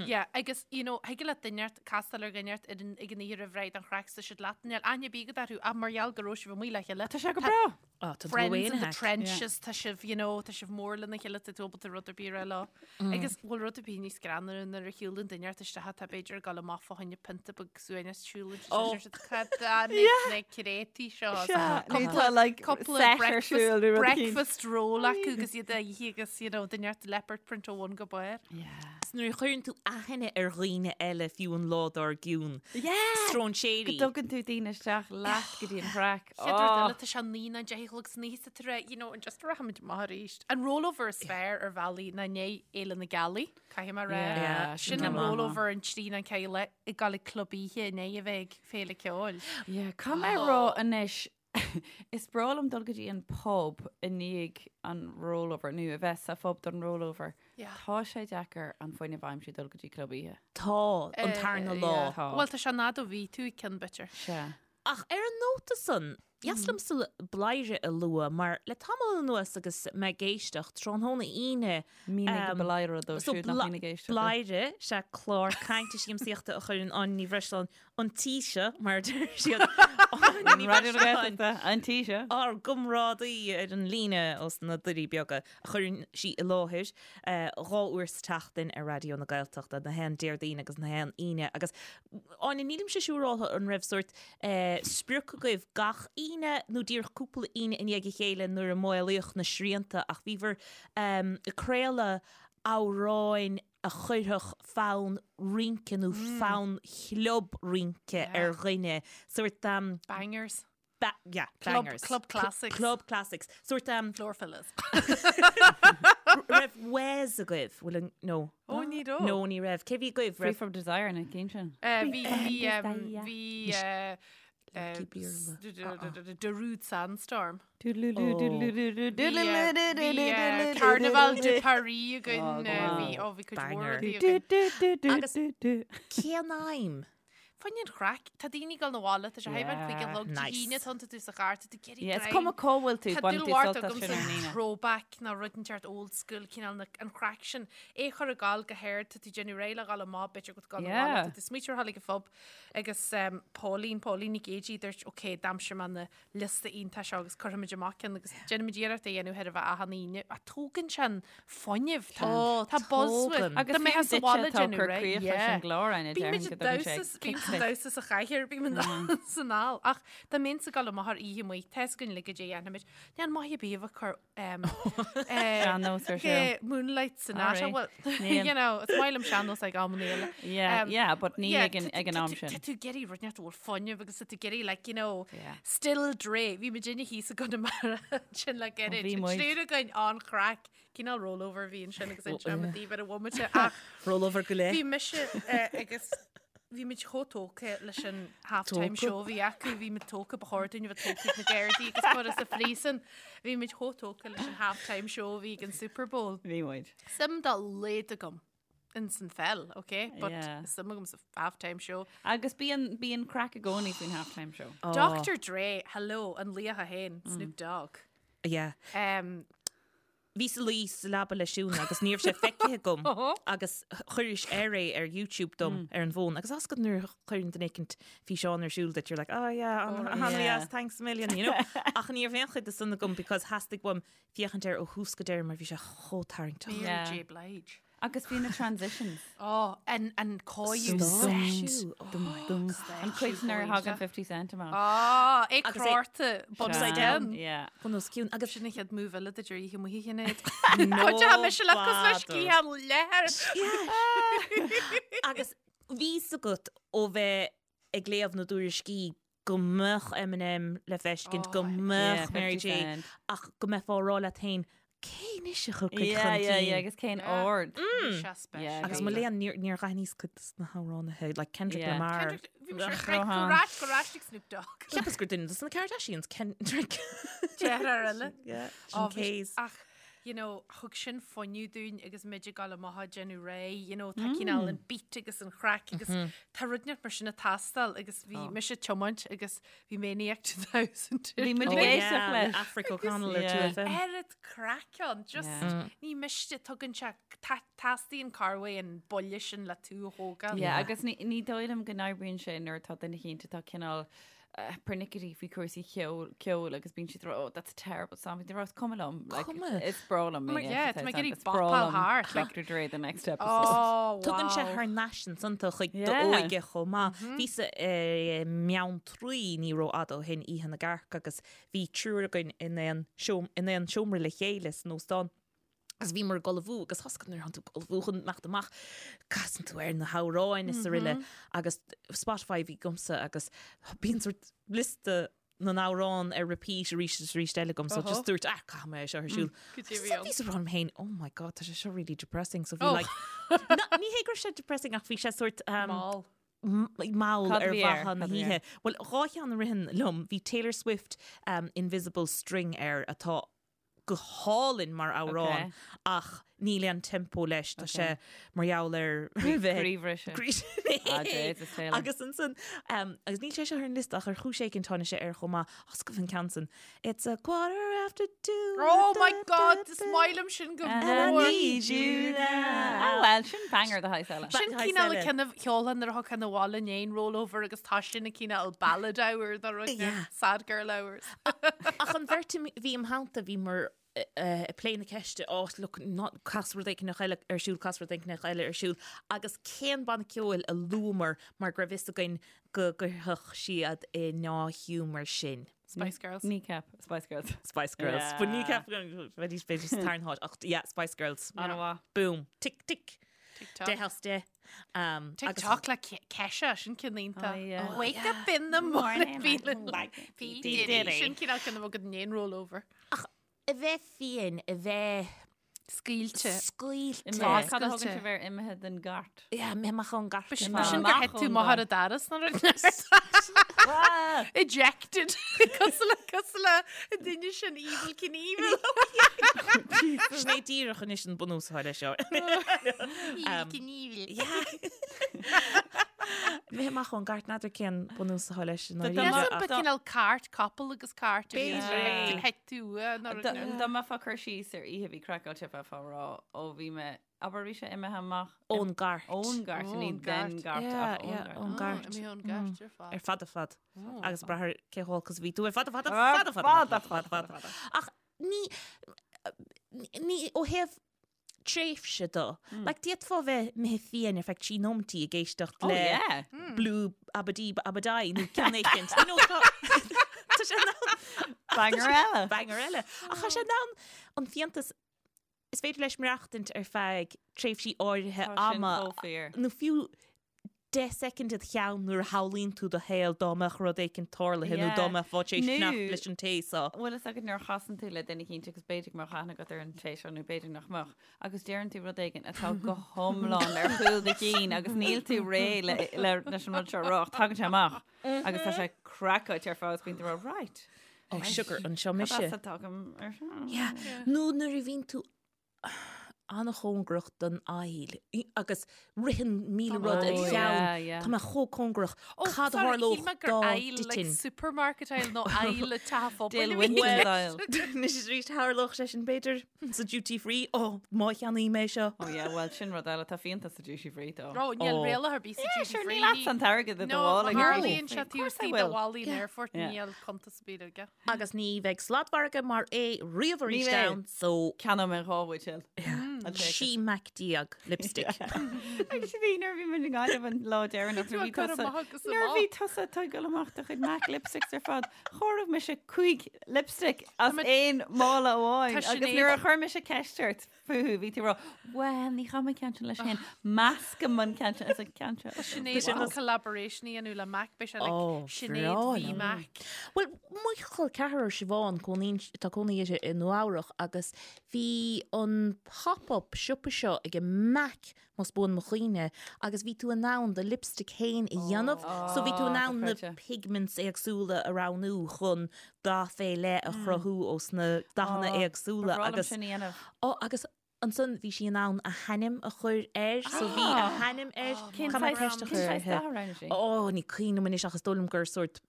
Speaker 2: Yeah, agus, you know, thig leat duine inteacht castáil ar dhuine inteacht ar an ag an oíche roimh ré don chraic tá siad leat níl aithne ar bith agat orthu ach mar gheall go raibh sibh amuigh le chéile.
Speaker 3: Tá sé go breá.
Speaker 4: Oh, tá
Speaker 2: Friends in the trenches, tá sibh, you know, tá sibh mór lena chéile, tá tú ábalta rud ar bith a rá leo. Agus bhfuil rud ar bith níos greannmhaire nuair a shiúlann duine inteacht isteach atá b'fhéidir ag dul amach fá choinne pionta beag suaimhnis siúlann
Speaker 4: Oh.
Speaker 2: siad cad na créataí seo.
Speaker 3: Sea, nó
Speaker 2: Cúpla-
Speaker 3: tá, like,
Speaker 2: cúpla
Speaker 3: set ar
Speaker 2: breakfast-
Speaker 3: siúl nó rud eicínt.
Speaker 2: breakfast roll acu agus iad á ithe agus, you know, duine inteacht leopard print ó bhun go barr.
Speaker 3: Yeah.
Speaker 4: Is nuair a chuireann tú aithne ar dhaoine eile fiú an lá dár gcionn.
Speaker 3: Yeah!
Speaker 4: Stróinséirí.
Speaker 3: Go dtugann tú daoine isteach leat go dtí an chraic.
Speaker 2: Chéad rud eile, tá sé 9 nó 10 a chlog san oíche sa tar you know, an just rachaimid amach arís. An rollover is fearr ar bhealaí ná i ndiaidh Fhéile na Gealaí, caithfidh mé a rá.
Speaker 3: Yeah,
Speaker 2: Sin
Speaker 3: sin
Speaker 2: an
Speaker 3: go maith.
Speaker 2: rollover an trí nó an ceathair ag dul ag club oíche i ndiaidh a bheith ag féile ceoil.
Speaker 3: Yeah, caithfidh mé a rá anois, is breá liom dul go dtí an pub i ndiaidh an rollover, nó a bheith sa phub don rollover.
Speaker 2: Yeah.
Speaker 3: Tá sé deacair an fuinneamh a aimsiú dul go dtí club oíche.
Speaker 4: Tá, an tarna lá.
Speaker 2: Yeah.
Speaker 3: Tá.
Speaker 2: Bhuel, tá sé an fhad ó bhí tú ag ceann b'fhéidir.
Speaker 3: Sea.
Speaker 4: Ach ar an nóta san, dheas liomsa Bladhaire a lua mar le tamall anuas agus mé ag éisteacht tráthnóna Aoine,
Speaker 3: Mínigh Bladhaire dóibh
Speaker 4: so
Speaker 3: siúd nach mbíonn ag éisteacht.
Speaker 4: Bladhaire, sea clár cainte siamsaíochta a chuireann Áine Ní Bhreisleáin an tí seo, mar a deir siad, Áine Ní
Speaker 3: Raidió na
Speaker 4: Bhreisleáin,
Speaker 3: Gaeltachta, an tí seo.
Speaker 4: ár gcomrádaí ar an líne ós na Doirí Beaga, a chuireann sí i láthair dhá uair sa tseachtain ar Raidió na Gaeltachta, na haon Déardaoin agus na haon Aoine. Agus, Áine, nílimse siúráltha an raibh sórt sprioc agaibh gach Aoine nó díreach cúpla Aoine i ndiaidh a chéile nuair a maolaíodh na srianta ach bhíobhair ag craoladh amhráin a chuirfeadh fonn rince nó fonn chlub rince ar dhuine, sórt.
Speaker 2: Bangers.
Speaker 4: Ba yeah,
Speaker 2: Club,
Speaker 4: bangers.
Speaker 2: club classics.
Speaker 4: Club classics. Sórt um,
Speaker 2: Floor fillers.
Speaker 4: raibh Wes agaibh? Bhfuil an no.
Speaker 2: Ó, ní raibh.
Speaker 4: No, ní raibh. Cé bhí agaibh?
Speaker 3: Free
Speaker 4: Raibh
Speaker 3: from Desire na cinn sin.
Speaker 2: Bhí, bhí, um, bhí, uh,
Speaker 4: Lucky Beerlao.
Speaker 2: Darude Sandstorm.
Speaker 3: Bhí
Speaker 2: Bhí Carnaval de Paris againn. Bhí, ó, bhí cuid mhór
Speaker 4: Banger.
Speaker 2: rudaí againn.
Speaker 4: Agus cén aidhm?
Speaker 2: Fá choinne an chraic, tá daoine ag dul 'na bhaile, tá sé thar a bheith 5 a chlog, Dé
Speaker 4: Nice.
Speaker 2: hAoine, tánn tú sa charr, tá tú ag iarraidh
Speaker 3: Yeah, is
Speaker 2: greim.
Speaker 3: cuma cá bhfuil tú,
Speaker 2: Tá
Speaker 3: baineann
Speaker 2: dúil
Speaker 3: tú
Speaker 2: mhór
Speaker 3: sult as
Speaker 2: agamsa
Speaker 3: sin ar an Aoine.
Speaker 2: throwback nó rud inteacht old school, cineál na, an chraic sin. É chur ag gabháil go hard, tá tú ag déanamh réidh le dhul amach, b'fhéidir go bhfuil tú ag dul 'na bhaile,
Speaker 3: Yeah.
Speaker 2: tá tú smaoitiú ar dhul ag an phub agus um, Pauline, Pauline Nic Géidigh, dúirt, ok, d'aimsigh mé na liosta iontach seo agus cuirfimid amach ceann agus déanaimid iarracht é a dhéanamh chóir a bheith achan Aoine. Ach tógann sé an fuinneamh. Tá
Speaker 4: Ó,
Speaker 2: tá buzz uait.
Speaker 4: tógann.
Speaker 3: Agus
Speaker 2: Tá mé
Speaker 3: fiú
Speaker 2: sa
Speaker 3: duitse
Speaker 2: bhaile
Speaker 3: atá ag
Speaker 2: déanamh
Speaker 3: cur
Speaker 2: réidh.
Speaker 3: críoch leis
Speaker 2: Yeah.
Speaker 3: an gclár, Áine,
Speaker 2: Bímid
Speaker 3: déarfainn go
Speaker 2: ag
Speaker 3: dtugann sé
Speaker 2: damhsa,
Speaker 3: kick
Speaker 2: bímid ag
Speaker 3: duit.
Speaker 2: damhsa sa chathaoir, bímid san ál. Ach dá mbeinnse ag dul amach ar oíche amuigh, tá fhios againn uilig goidé a dhéanfaimid. Níl maith ar bith a bheith ag cur
Speaker 3: Sean-nós ar siúl.
Speaker 2: Moonlight Sonata.
Speaker 3: Alright.
Speaker 2: Well,
Speaker 3: Níl.
Speaker 2: you know, is maith liom sean-nós ag amanna eile.
Speaker 3: Yeah, yeah, but ní
Speaker 2: yeah,
Speaker 3: ag an-
Speaker 2: tá-
Speaker 3: ag an
Speaker 2: tá
Speaker 3: am
Speaker 2: tú-
Speaker 3: sin.
Speaker 2: Tá tú ag iarraidh rud inteacht a bhfuil fuinneamh agus tá tú ag iarraidh, like, you know,
Speaker 3: Yeah.
Speaker 2: Still Dre. Bhí muid inne thíos i gConamara ansin le gairid.
Speaker 3: bhí
Speaker 2: An
Speaker 3: muid.
Speaker 2: triúr againn an-chraic. Cineál rollover a bhí ansin agus inseoidh mé daoibh ar an bhomaite ach
Speaker 4: Rollover go leith.
Speaker 2: bhí mise agus bhí muid chomh tógtha leis an half-time
Speaker 4: Tógtha.
Speaker 2: show a bhí acu, bhí muid tógtha, ba chóir dúinn a bheith tógtha ag na Gardaí agus curtha sa phríosún. Bhí muid chomh tógtha leis an half-time show a bhí ag an Super Bowl.
Speaker 3: Bhí muid.
Speaker 2: Suim dá laghad agam ins an pheil, ok? But
Speaker 3: Yeah.
Speaker 2: suim agam sa half-time show.
Speaker 3: Agus bíonn bíonn craic i gcónaí faoin half-time show.
Speaker 2: Dr. Dre, hello, an laoch é féin, Snoop Dogg.
Speaker 4: Yeah.
Speaker 2: Um,
Speaker 4: Bhíos ag luí sa leaba le Siún agus ní raibh sé feicthe agam agus chuiris air é ar YouTube dom ar an bhfón agus tá a fhios agat nuair a chuireann duine éicint físeán ar siúl duit you're like oh yeah an-dheas thanks a million you know ach ní raibh aon chuid de san agam because theastaigh uaim féachaint air ó thús go deireadh mar bhí sé chomh tarraingteach.
Speaker 2: Mary J Blige.
Speaker 3: Agus bhí na transitions.
Speaker 2: Ó, an an cóiriú.
Speaker 4: Stáisiú.
Speaker 3: Dum. An cuid nuair a thagann 50 Cent amach.
Speaker 2: Á, é
Speaker 4: Agus é-
Speaker 2: crárta
Speaker 4: Upside down.
Speaker 3: Yeah.
Speaker 4: Bun os cionn. Agus
Speaker 2: Sin an chéad move eile duit ar oíche amuigh a Shinéad. Tá mise le cos leis sciath leathair.
Speaker 4: Agus bhí a fhios agat ó bheith ag léamh na dtuairiscí go mbeadh Eminem le feiscint, go mbeadh Mary J, ach go mbeifeá ag rá leat féin, cé anois a thiocfaidh chun
Speaker 3: Yeah, yeah,
Speaker 4: cinn?
Speaker 3: yeah, agus cén ord. Yeah,
Speaker 4: Agus mo léan, níor níor dh'aithníos cuid de na hamhránaithe, like Kendrick
Speaker 3: Yeah.
Speaker 4: Lamar.
Speaker 2: Kendrick, bhí mise ar go rais go rais ag Snoop Dogg.
Speaker 4: Cheapas gur duine dos na Kardashians, Kendrick.
Speaker 2: Deartháir eile.
Speaker 4: Yeah,
Speaker 2: Ó,
Speaker 4: sin
Speaker 2: bhí-
Speaker 4: K's.
Speaker 2: Ach, you know, thug sin fuinneamh dúinn agus muid ag dul amach ag déanamh réidh, you know, tá cineál an beat agus an chraic agus tá rud inteacht mar sin ag teastáil agus bhí mise ag tiomáint agus bhí Maniac 2000.
Speaker 3: Bhí muid
Speaker 4: Oh,
Speaker 3: ag éisteacht
Speaker 4: yeah,
Speaker 3: leis.
Speaker 4: Aifric O'Connell ar
Speaker 3: Yeah.
Speaker 4: 2FM.
Speaker 2: Oiread craic ann, just
Speaker 3: Yeah.
Speaker 2: ní miste tugann sé teastaíonn corruair an buille sin le tú a thógáil.
Speaker 3: Yeah, agus ní ní dóigh liom go n-oibríonn sé nuair atá duine éicint atá cineál pernickety faoi chúrsaí ceoil ceoil agus bíonn siad ag rá, oh that's a terrible song. Bíonn siad ag rá, is cuma liom. Like,
Speaker 4: Cuma.
Speaker 3: Is breá liom.
Speaker 2: Mar, yeah, tá mé ag iarraidh
Speaker 3: Is breá
Speaker 2: bopáil
Speaker 3: liom
Speaker 2: thart, like-
Speaker 3: Dr. Dre the next episode.
Speaker 2: Oh,
Speaker 4: Tugann sé
Speaker 2: wow.
Speaker 4: thar n-ais ansan tú chuig
Speaker 3: Yeah.
Speaker 4: d'óige chomh maith. Bhíos i mBeanntraí ní rófhada ó shin Oíche na gCearc agus bhí triúr againn in aon seom- in aon seomra le chéile san óstán. Agus bhíomar ag ullmhú agus tá a fhios agat nuair atánn tú ag ullmhú chun imeacht amach, casann tú ar na hamhráin is araile agus Spotify a bhí agamsa agus bíonn sort liosta na n-amhrán ar repeat arís is arís eile agam so just dúirt ah caithfidh mé é seo ar siúl.
Speaker 2: Go dtí
Speaker 4: So bhíos ag rá liom féin oh my god tá sé seo really depressing so bhí
Speaker 2: Oh.
Speaker 4: like Na, ní hé go raibh sé depressing ach bhí sé sort um,
Speaker 2: Mall.
Speaker 4: m- mall
Speaker 3: Cad a
Speaker 4: ar
Speaker 3: bhí air?
Speaker 4: mhaithe
Speaker 3: Cad
Speaker 4: na
Speaker 3: a bhí
Speaker 4: hoíche. Well dhá cheann a ritheann liom bhí Taylor Swift um, Invisible String air atá go hálainn mar amhrán
Speaker 3: Ok.
Speaker 4: ach níl aon tempo leis tá sé mar gheall ar bheith
Speaker 3: Croíbhriseadh.
Speaker 4: Croí-
Speaker 3: Ah, Jesus, Taylor.
Speaker 4: Agus ansan um, agus níl sé seo ar an liosta ach ar chúis éigin tháinig sé air chomh maith oscail an ceann san. It's a quarter after two.
Speaker 2: Oh my
Speaker 4: da,
Speaker 2: god,
Speaker 4: da,
Speaker 2: is
Speaker 4: da.
Speaker 2: maith liom sin go
Speaker 3: And I
Speaker 2: mór.
Speaker 3: need you now. Ah, well, sin banger de shaghas eile.
Speaker 2: Sin
Speaker 4: Ba-
Speaker 2: cineál
Speaker 4: eile.
Speaker 2: ceann a cheolfá nuair atá tú abhaile i ndiaidh rollover agus tá sin a cineál ballad hour dá rud
Speaker 4: Yeah.
Speaker 2: sad girl hours.
Speaker 4: Ach an bheirt a bhí im theannta bhí mar ag plé na ceiste oh look not cas rud éigin eile ar siúl cas rud éigin eile ar siúl agus cén banna ceoil a luamar mar go raibh fhios againn go gcuirfeadh siad i ndea-ghiúmar sinn.
Speaker 2: Spice Girls.
Speaker 3: Kneecap, Spice Girls.
Speaker 4: Spice Girls.
Speaker 3: Yeah.
Speaker 4: But Kneecap bheidís b'fhéidir sa tarna háit ach yeah Spice Girls.
Speaker 3: An-mhaith.
Speaker 4: Boom. Tick tick.
Speaker 2: TikTok.
Speaker 4: Deich as deich. Um, agus-
Speaker 2: TikTok le Kesha sin ceann iontach.
Speaker 3: Oh, yeah.
Speaker 2: Wake up in the morning feeling like P.
Speaker 4: P.
Speaker 2: Diddy.
Speaker 4: Diddy.
Speaker 2: Sin cineál ceann a bheadh i ndiaidh rollover.
Speaker 4: A bheith fiáin, a bheith
Speaker 2: Scaoilte.
Speaker 4: scaoilte.
Speaker 3: Imithe. Cad a thugann
Speaker 2: Oscailte.
Speaker 3: sibh ar imithe den gcairt?
Speaker 4: Yeah, imithe amach ón gcairt.
Speaker 2: B'shin
Speaker 3: Imithe
Speaker 2: gur
Speaker 3: amach
Speaker 2: thit tú
Speaker 3: ón
Speaker 2: amach ar
Speaker 3: gcairt.
Speaker 2: an doras nó rud Ejected. Cosúil le cosúil le an duine sin Evel Knievel.
Speaker 4: Sin é díreach anois an bunús atá leis seo.
Speaker 2: Evel Knievel.
Speaker 4: Imithe amach ón gcairt n'fheadar cén bunús atá leis an
Speaker 3: Dá
Speaker 4: áiríre
Speaker 2: Yes,
Speaker 4: ach-
Speaker 2: ba cineál cairt, capall agus cairt.
Speaker 4: B'fhéidir.
Speaker 2: Thit tú nó rud
Speaker 3: Dá mbeifeá ag cur síos ar oíche a bhí craiceáilte bheifeá ag rá ó bhí mé abair bhí sé imithe amach
Speaker 4: Ón gcairt.
Speaker 3: ón gcairt ní
Speaker 2: Ón
Speaker 3: den
Speaker 2: gcairt.
Speaker 3: gcairt
Speaker 4: Yeah,
Speaker 3: ach ón
Speaker 4: yeah,
Speaker 3: gcairt.
Speaker 4: ón gcairt.
Speaker 2: Imithe ón gcairt ar fad.
Speaker 4: Ar fad ar fad. Agus brath ar cé chomh holc is a bhí tú ar fad ar fad ar
Speaker 3: Ar
Speaker 4: fad ar fad
Speaker 3: fad
Speaker 4: ar fad ar fad. Ach ní ní ó thaobh tréimhse de. Like d'fhéadfá bheith imithe fiáin ar feadh trí nóimeataí ag éisteacht
Speaker 3: Oh
Speaker 4: le
Speaker 3: yeah.
Speaker 4: Blue Abadí Abadai nó ceann éicint. You know, tá tá sé in ann
Speaker 3: Banger eile.
Speaker 4: banger eile. Ach tá sé in ann an fiántas is féidir leis maireachtaint ar feadh tréimhsí áirithe
Speaker 3: Tá sin
Speaker 4: ama
Speaker 3: chomh fíor.
Speaker 4: nó fiú 10 soicind id cheann nuair a shamhlaíonn tú do shaol dá mbeadh rud éicint tarlaithe nó
Speaker 3: Yeah.
Speaker 4: dá mbeifeá tar éis
Speaker 3: Nó-
Speaker 4: fanacht leis an té seo.
Speaker 3: Bhfuil fhios agat nuair a chasann tú le duine éicint agus b'fhéidir go mbeadh aithne agat ar an té seo nó b'fhéidir nach mbeadh agus deireann tú rud éigin atá go hiomlán ar chúl do chinn agus níl tú réidh le, le, leis an rud seo a rá ach tagann sé amach agus tá sé craiceáilte ar fad agus bíonn tú ag rá, right.
Speaker 4: Oh sugar, anseo
Speaker 3: Cad
Speaker 4: mise.
Speaker 3: as a dtagaim ar seo?
Speaker 4: Yeah. Nó nuair a bhíonn tú. an-chóngarach don aisle agus ritheann 1000 rud id
Speaker 3: Oh,
Speaker 4: cheann.
Speaker 3: yeah, yeah.
Speaker 4: Tá mé chomh cóngarach.
Speaker 2: Oh,
Speaker 4: Cad a
Speaker 2: sorry,
Speaker 4: tharlódh
Speaker 2: shíl mé gur
Speaker 4: dá
Speaker 2: aisle, like
Speaker 4: dtitfinn?
Speaker 2: supermarket aisle nó aisle teach an phobail
Speaker 3: Dale
Speaker 2: a bhí
Speaker 3: Winton's
Speaker 2: i
Speaker 3: aisle.
Speaker 4: Anois arís tharlódh sé sin b'fhéidir sa duty free. Ó, má cheannaím é seo.
Speaker 3: Oh yeah, well sin rud eile, tá fíonta sa duty free though.
Speaker 2: Ó, níl
Speaker 4: Oh.
Speaker 2: riail ar bith sa
Speaker 3: Yeah,
Speaker 2: duty
Speaker 3: sure,
Speaker 2: free.
Speaker 3: níl agat an t-airgead i do
Speaker 2: No,
Speaker 3: mhála
Speaker 2: má
Speaker 3: ag duty
Speaker 2: tharlaíonn
Speaker 3: free.
Speaker 2: sé
Speaker 3: Of course
Speaker 2: taobh
Speaker 3: I
Speaker 2: istigh de
Speaker 3: will.
Speaker 2: bhallaí an aerfoirt,
Speaker 3: Yeah.
Speaker 2: níl cuntas ar bith aige.
Speaker 4: Agus ní bheidh sladmhargadh mar é riamh arís
Speaker 3: bheidh.
Speaker 4: ann, so
Speaker 3: Ceannóidh mé 2 bhuidéal. I'll take it.
Speaker 4: 16 MAC lipstick.
Speaker 3: Agus bhí nuair a bhí muid i nGaillimh an lá deireanach
Speaker 2: Tú
Speaker 3: nuair a
Speaker 2: ag
Speaker 3: bhí
Speaker 2: cur
Speaker 3: tusa
Speaker 2: amach agus
Speaker 3: nuair a
Speaker 2: amach.
Speaker 3: bhí tusa ag tógáil amach do chuid MAC lipsticks ar fad, chomhair mise cúig lipstick as aon mála amháin
Speaker 2: Tá
Speaker 3: agus
Speaker 2: Sinéad-
Speaker 3: nuair a chuir mise ceist ort fúthu bhí tú ag rá, Well, ní chaithim an ceann sin leis féin, meascaim an ceann sin as an ceann seo.
Speaker 2: Tá Sinéad
Speaker 4: sin
Speaker 2: chun collaboration a dhéanamh le MAC, beidh sé like
Speaker 4: Oh,
Speaker 2: Sinéad
Speaker 4: breá
Speaker 2: v
Speaker 4: liom.
Speaker 2: MAC.
Speaker 4: Bhuel, mo chol ceathrar Siobhán, cónaíonn, tá cónaí uirthi i Nua Eabhrach agus bhí an pop-up siopa seo ag MAC, más buan mo chuimhne, agus bhí tú in ann do lipstick féin a dhéanamh, so bhí tú in ann na
Speaker 3: dochreidte.
Speaker 4: pigments éagsúla a roghnú chun dath fé leith a chruthú ós na dathanna éagsúla
Speaker 3: Ba bhreá liom
Speaker 4: agus
Speaker 3: sin a dhéanamh.
Speaker 4: Ó, agus ansan bhí sí in ann a hainm a chur air, so bhí a hainm air.
Speaker 3: Cén
Speaker 4: Caithfidh mé
Speaker 3: saghas
Speaker 4: ceist a
Speaker 3: cén
Speaker 4: chur
Speaker 3: saghas
Speaker 4: uirthi.
Speaker 3: dath a roghnaigh sí?
Speaker 4: Ó, ní cuimhin liom anois ach is dóigh liom gur sórt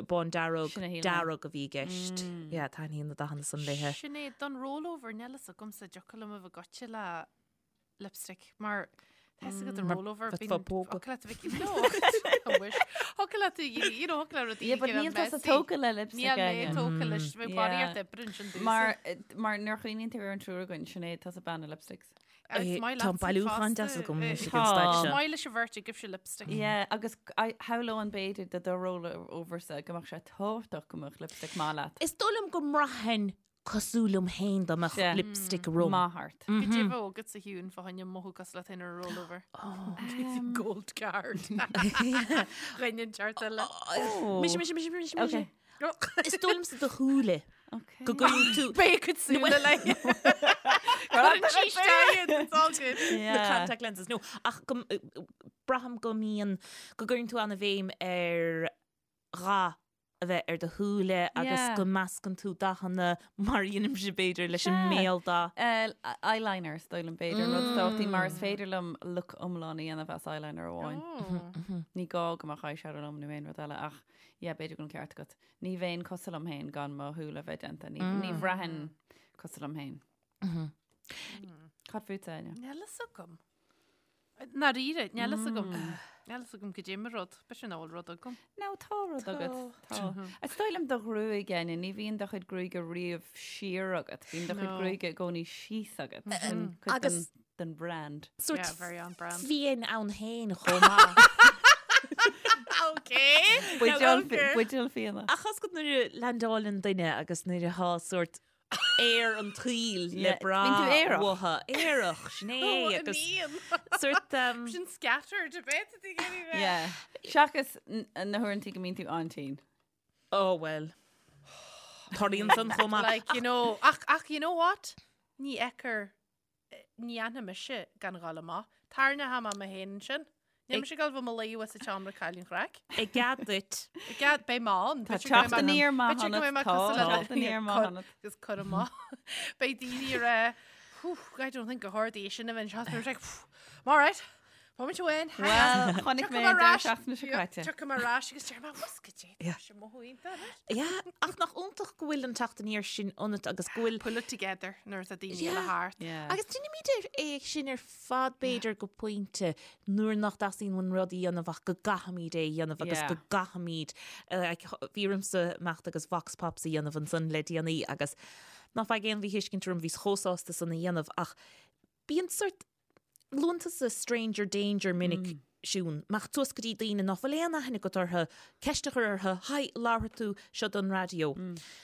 Speaker 4: bán dearg,
Speaker 3: Sin a shíl mé.
Speaker 4: dearg a bhí i gceist. Yeah, taitníonn na dathanna san léithe.
Speaker 2: Sinéad, don rollover, níl fhios agamsa an dtiocfadh liom a bheith goite le lipstick mar tá fhios agat an rollover
Speaker 4: bheith
Speaker 2: bíonn
Speaker 4: fá pógadh.
Speaker 2: thiocfadh leat a bheith no I wish. Thiocfadh leat a you know thiocfadh le rudaí
Speaker 3: Yeah, but
Speaker 2: a
Speaker 3: níl tusa
Speaker 2: messy.
Speaker 3: tógtha le lipstick
Speaker 2: Níl mé
Speaker 3: Áine.
Speaker 2: tógtha leis bheith
Speaker 3: Yeah.
Speaker 2: barraíocht oibre ansin domhsa.
Speaker 3: Mar mar nuair a chuimhníonn tú ar an triúr againn, Sinéad, tusa bean na lipsticks.
Speaker 2: Agus
Speaker 4: Eh,
Speaker 2: maith
Speaker 4: Tá an
Speaker 2: leatsa
Speaker 4: bailiúchán
Speaker 2: fosta.
Speaker 4: deas agam
Speaker 2: Eh,
Speaker 4: anois ag
Speaker 3: Tá.
Speaker 4: an staid
Speaker 2: Is
Speaker 4: seo.
Speaker 2: maith leis an bheirt agaibhse lipstick.
Speaker 3: Yeah, agus shamhlóinn b'fhéidir do do rollover-sa go mbeadh sé tábhachtach go mbeadh lipstick maith leat.
Speaker 4: Is dóigh liom go mbraithfinn cosúil liom féin dá mbeadh
Speaker 3: Sea.
Speaker 4: lipstick orm.
Speaker 3: Maith ort.
Speaker 2: Goidé a bheadh agat sa Shiún fá choinne mothú cosúil leat féin ar rollover. Gold card. Rinne an teart eile.
Speaker 4: Mise, mise, mise, mise, mise.
Speaker 3: Okay.
Speaker 4: Is dóigh liomsa do shúile.
Speaker 3: Okay.
Speaker 4: Go gcuireann tú
Speaker 2: Beidh cuid súile le. Cuireann sí isteach iad, it's all good.
Speaker 4: na
Speaker 3: Yeah.
Speaker 4: contact lenses. No, ach go, braithim go mbíonn, go gcuireann tú an-bhéim ar dhath a bheith ar do shúile agus
Speaker 3: Yeah.
Speaker 4: go meascann tú dathanna mar a dhéanaimse b'fhéidir leis an
Speaker 3: Sea.
Speaker 4: mbéaldath.
Speaker 3: Eh, eyeliner is dóigh liom b'fhéidir an rud is tábhachtaí mar is féidir liom look iomlán a dhéanamh as eyeliner amháin.
Speaker 2: Oh.
Speaker 3: Ní gá go mbeadh eyeshadow liom nó aon rud eile ach yeah, b'fhéidir go bhfuil an ceart agat. Ní bheinn cosúil liom féin gan mo shúile a bheith déanta. Ní, ní bhraithfinn cosúil liom féin. Cad fútsa, Áine?
Speaker 2: Níl fhios agam. Ndáiríre, níl fhios agam. Níl fhios agam goidé mo rud. B'fhéidir nach bhfuil rud agam.
Speaker 3: No, tá rud agat. Tá. Is dóigh liom do ghruaig, Áine, ní bhíonn do chuid gruaige riamh siar agat. Bíonn do chuid
Speaker 2: No.
Speaker 3: gruaige i gcónaí síos agat. Sin cuid
Speaker 4: Agus-
Speaker 3: den, den brand.
Speaker 4: Sórt
Speaker 2: Yeah, very on brand.
Speaker 4: fiain ann féin chomh maith.
Speaker 2: Okay.
Speaker 3: Buidéal fi- buidéal fíona.
Speaker 4: Ach tá a fhios agat nuair a leaindeálann duine agus nuair atá sórt aer an tsaoil le
Speaker 3: Yeah,
Speaker 4: brath
Speaker 3: bíonn tú aerach.
Speaker 4: uathu. Aerach, sin é agus sórt um,
Speaker 2: Sin scattered a bit a bit.
Speaker 3: Yeah. Seachas n- na huaireanta go mbíonn tú an-tinn.
Speaker 4: Oh well. Tarlaíonn san chomh maith.
Speaker 2: Like, you know, ach, ach, you know what? Ní fheictear, ní fhanfaidh mise gan dhul amach. Tarraingeoidh mé mé féin ansin. Níl mise ag dul bheith i mo luí sa tseomra cailín chraic.
Speaker 4: I gcead duit.
Speaker 2: I gcead, beidh mé ann.
Speaker 3: Tá
Speaker 2: B'fhéidir go mbeidh
Speaker 3: teacht
Speaker 2: mé-
Speaker 3: aniar maith
Speaker 2: b'fhéidir go mbeidh
Speaker 3: ionat,
Speaker 2: mé
Speaker 3: tá
Speaker 2: cosúil le
Speaker 3: teacht aniar maith
Speaker 2: cur-
Speaker 3: ionat.
Speaker 2: agus cur amach. Beidh daoine ag rá, "Whew, I don't think go hard í sin a bheith anseo." Like, "Phew, I'm all right. Moment to win.
Speaker 3: Well, chonaic mé an deireadh seachtaine seo caite.
Speaker 2: Tiocfaidh mé ar ais agus deir mé, "What's go dé? Tá sé mothú iontach anois."
Speaker 4: Yeah, ach nach iontach go bhfuil an teacht aniar sin ionat agus go bhfuil
Speaker 2: Pull it together nuair atá daoine
Speaker 4: Yeah.
Speaker 2: eile thart.
Speaker 3: Yeah.
Speaker 4: Agus déanaimid é sin ar fad b'fhéidir go pointe nuair nach dteastaíonn uainn rud a dhéanamh ach go gcaithfimid é a dhéanamh agus
Speaker 3: Yeah.
Speaker 4: go gcaithfimid eh, like, bhí ormsa imeacht agus vox pops a dhéanamh ansan le déanaí agus ná faigh aon mhíthuiscint orm bhíos chomh sásta san a dhéanamh ach bíonn sort luann tusa stranger danger minic Siún, imeacht suas go dtí daoine nach bhfuil aon aithne agat orthu, ceist a chur orthu, hi, labharfaidh tú seo don raidió.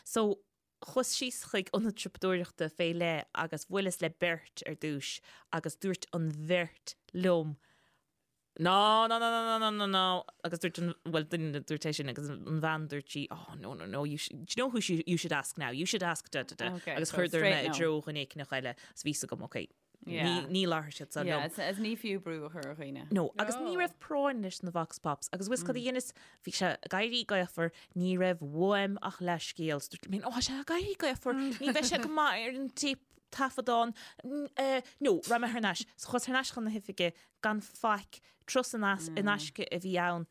Speaker 4: So, chuas síos chuig ionad siopadóireachta fé leith agus bhuaileas le beirt ar dtús agus dúirt an bheirt liom, No, no, no, no, no, no, no, no. Agus dúirt an, well, duine dúirt é sin agus an bhean dúirt sí, oh, no, no, no, you should, do you know who you, you should ask now? You should ask da, da, da.
Speaker 3: Okay,
Speaker 4: Agus
Speaker 3: so
Speaker 4: chuireadar
Speaker 3: straight
Speaker 4: mé i
Speaker 3: no.
Speaker 4: dtreo dhuine éicneach eile. Agus bhí a fhios agam, okay,
Speaker 3: Yeah.
Speaker 4: ní, ní labharfaidh siad san
Speaker 3: Yeah,
Speaker 4: liom.
Speaker 3: is, is ní fiú brú a chur ar dhaoine.
Speaker 4: No, agus ní raibh práinn leis na vox pops, agus bhfuil a fhios cad a dheineas, bhí sé ag éirí gaofar, ní raibh uaim ach leathscéal. So dúirt mé, ó, tá sé ag éirí gaofar, ní bheidh sé go maith ar an tape. taifeadán, no, raibh mé thar n-ais. So chuas thar n-ais chun na hoifige gan faic, turas in aisce a bhí ann.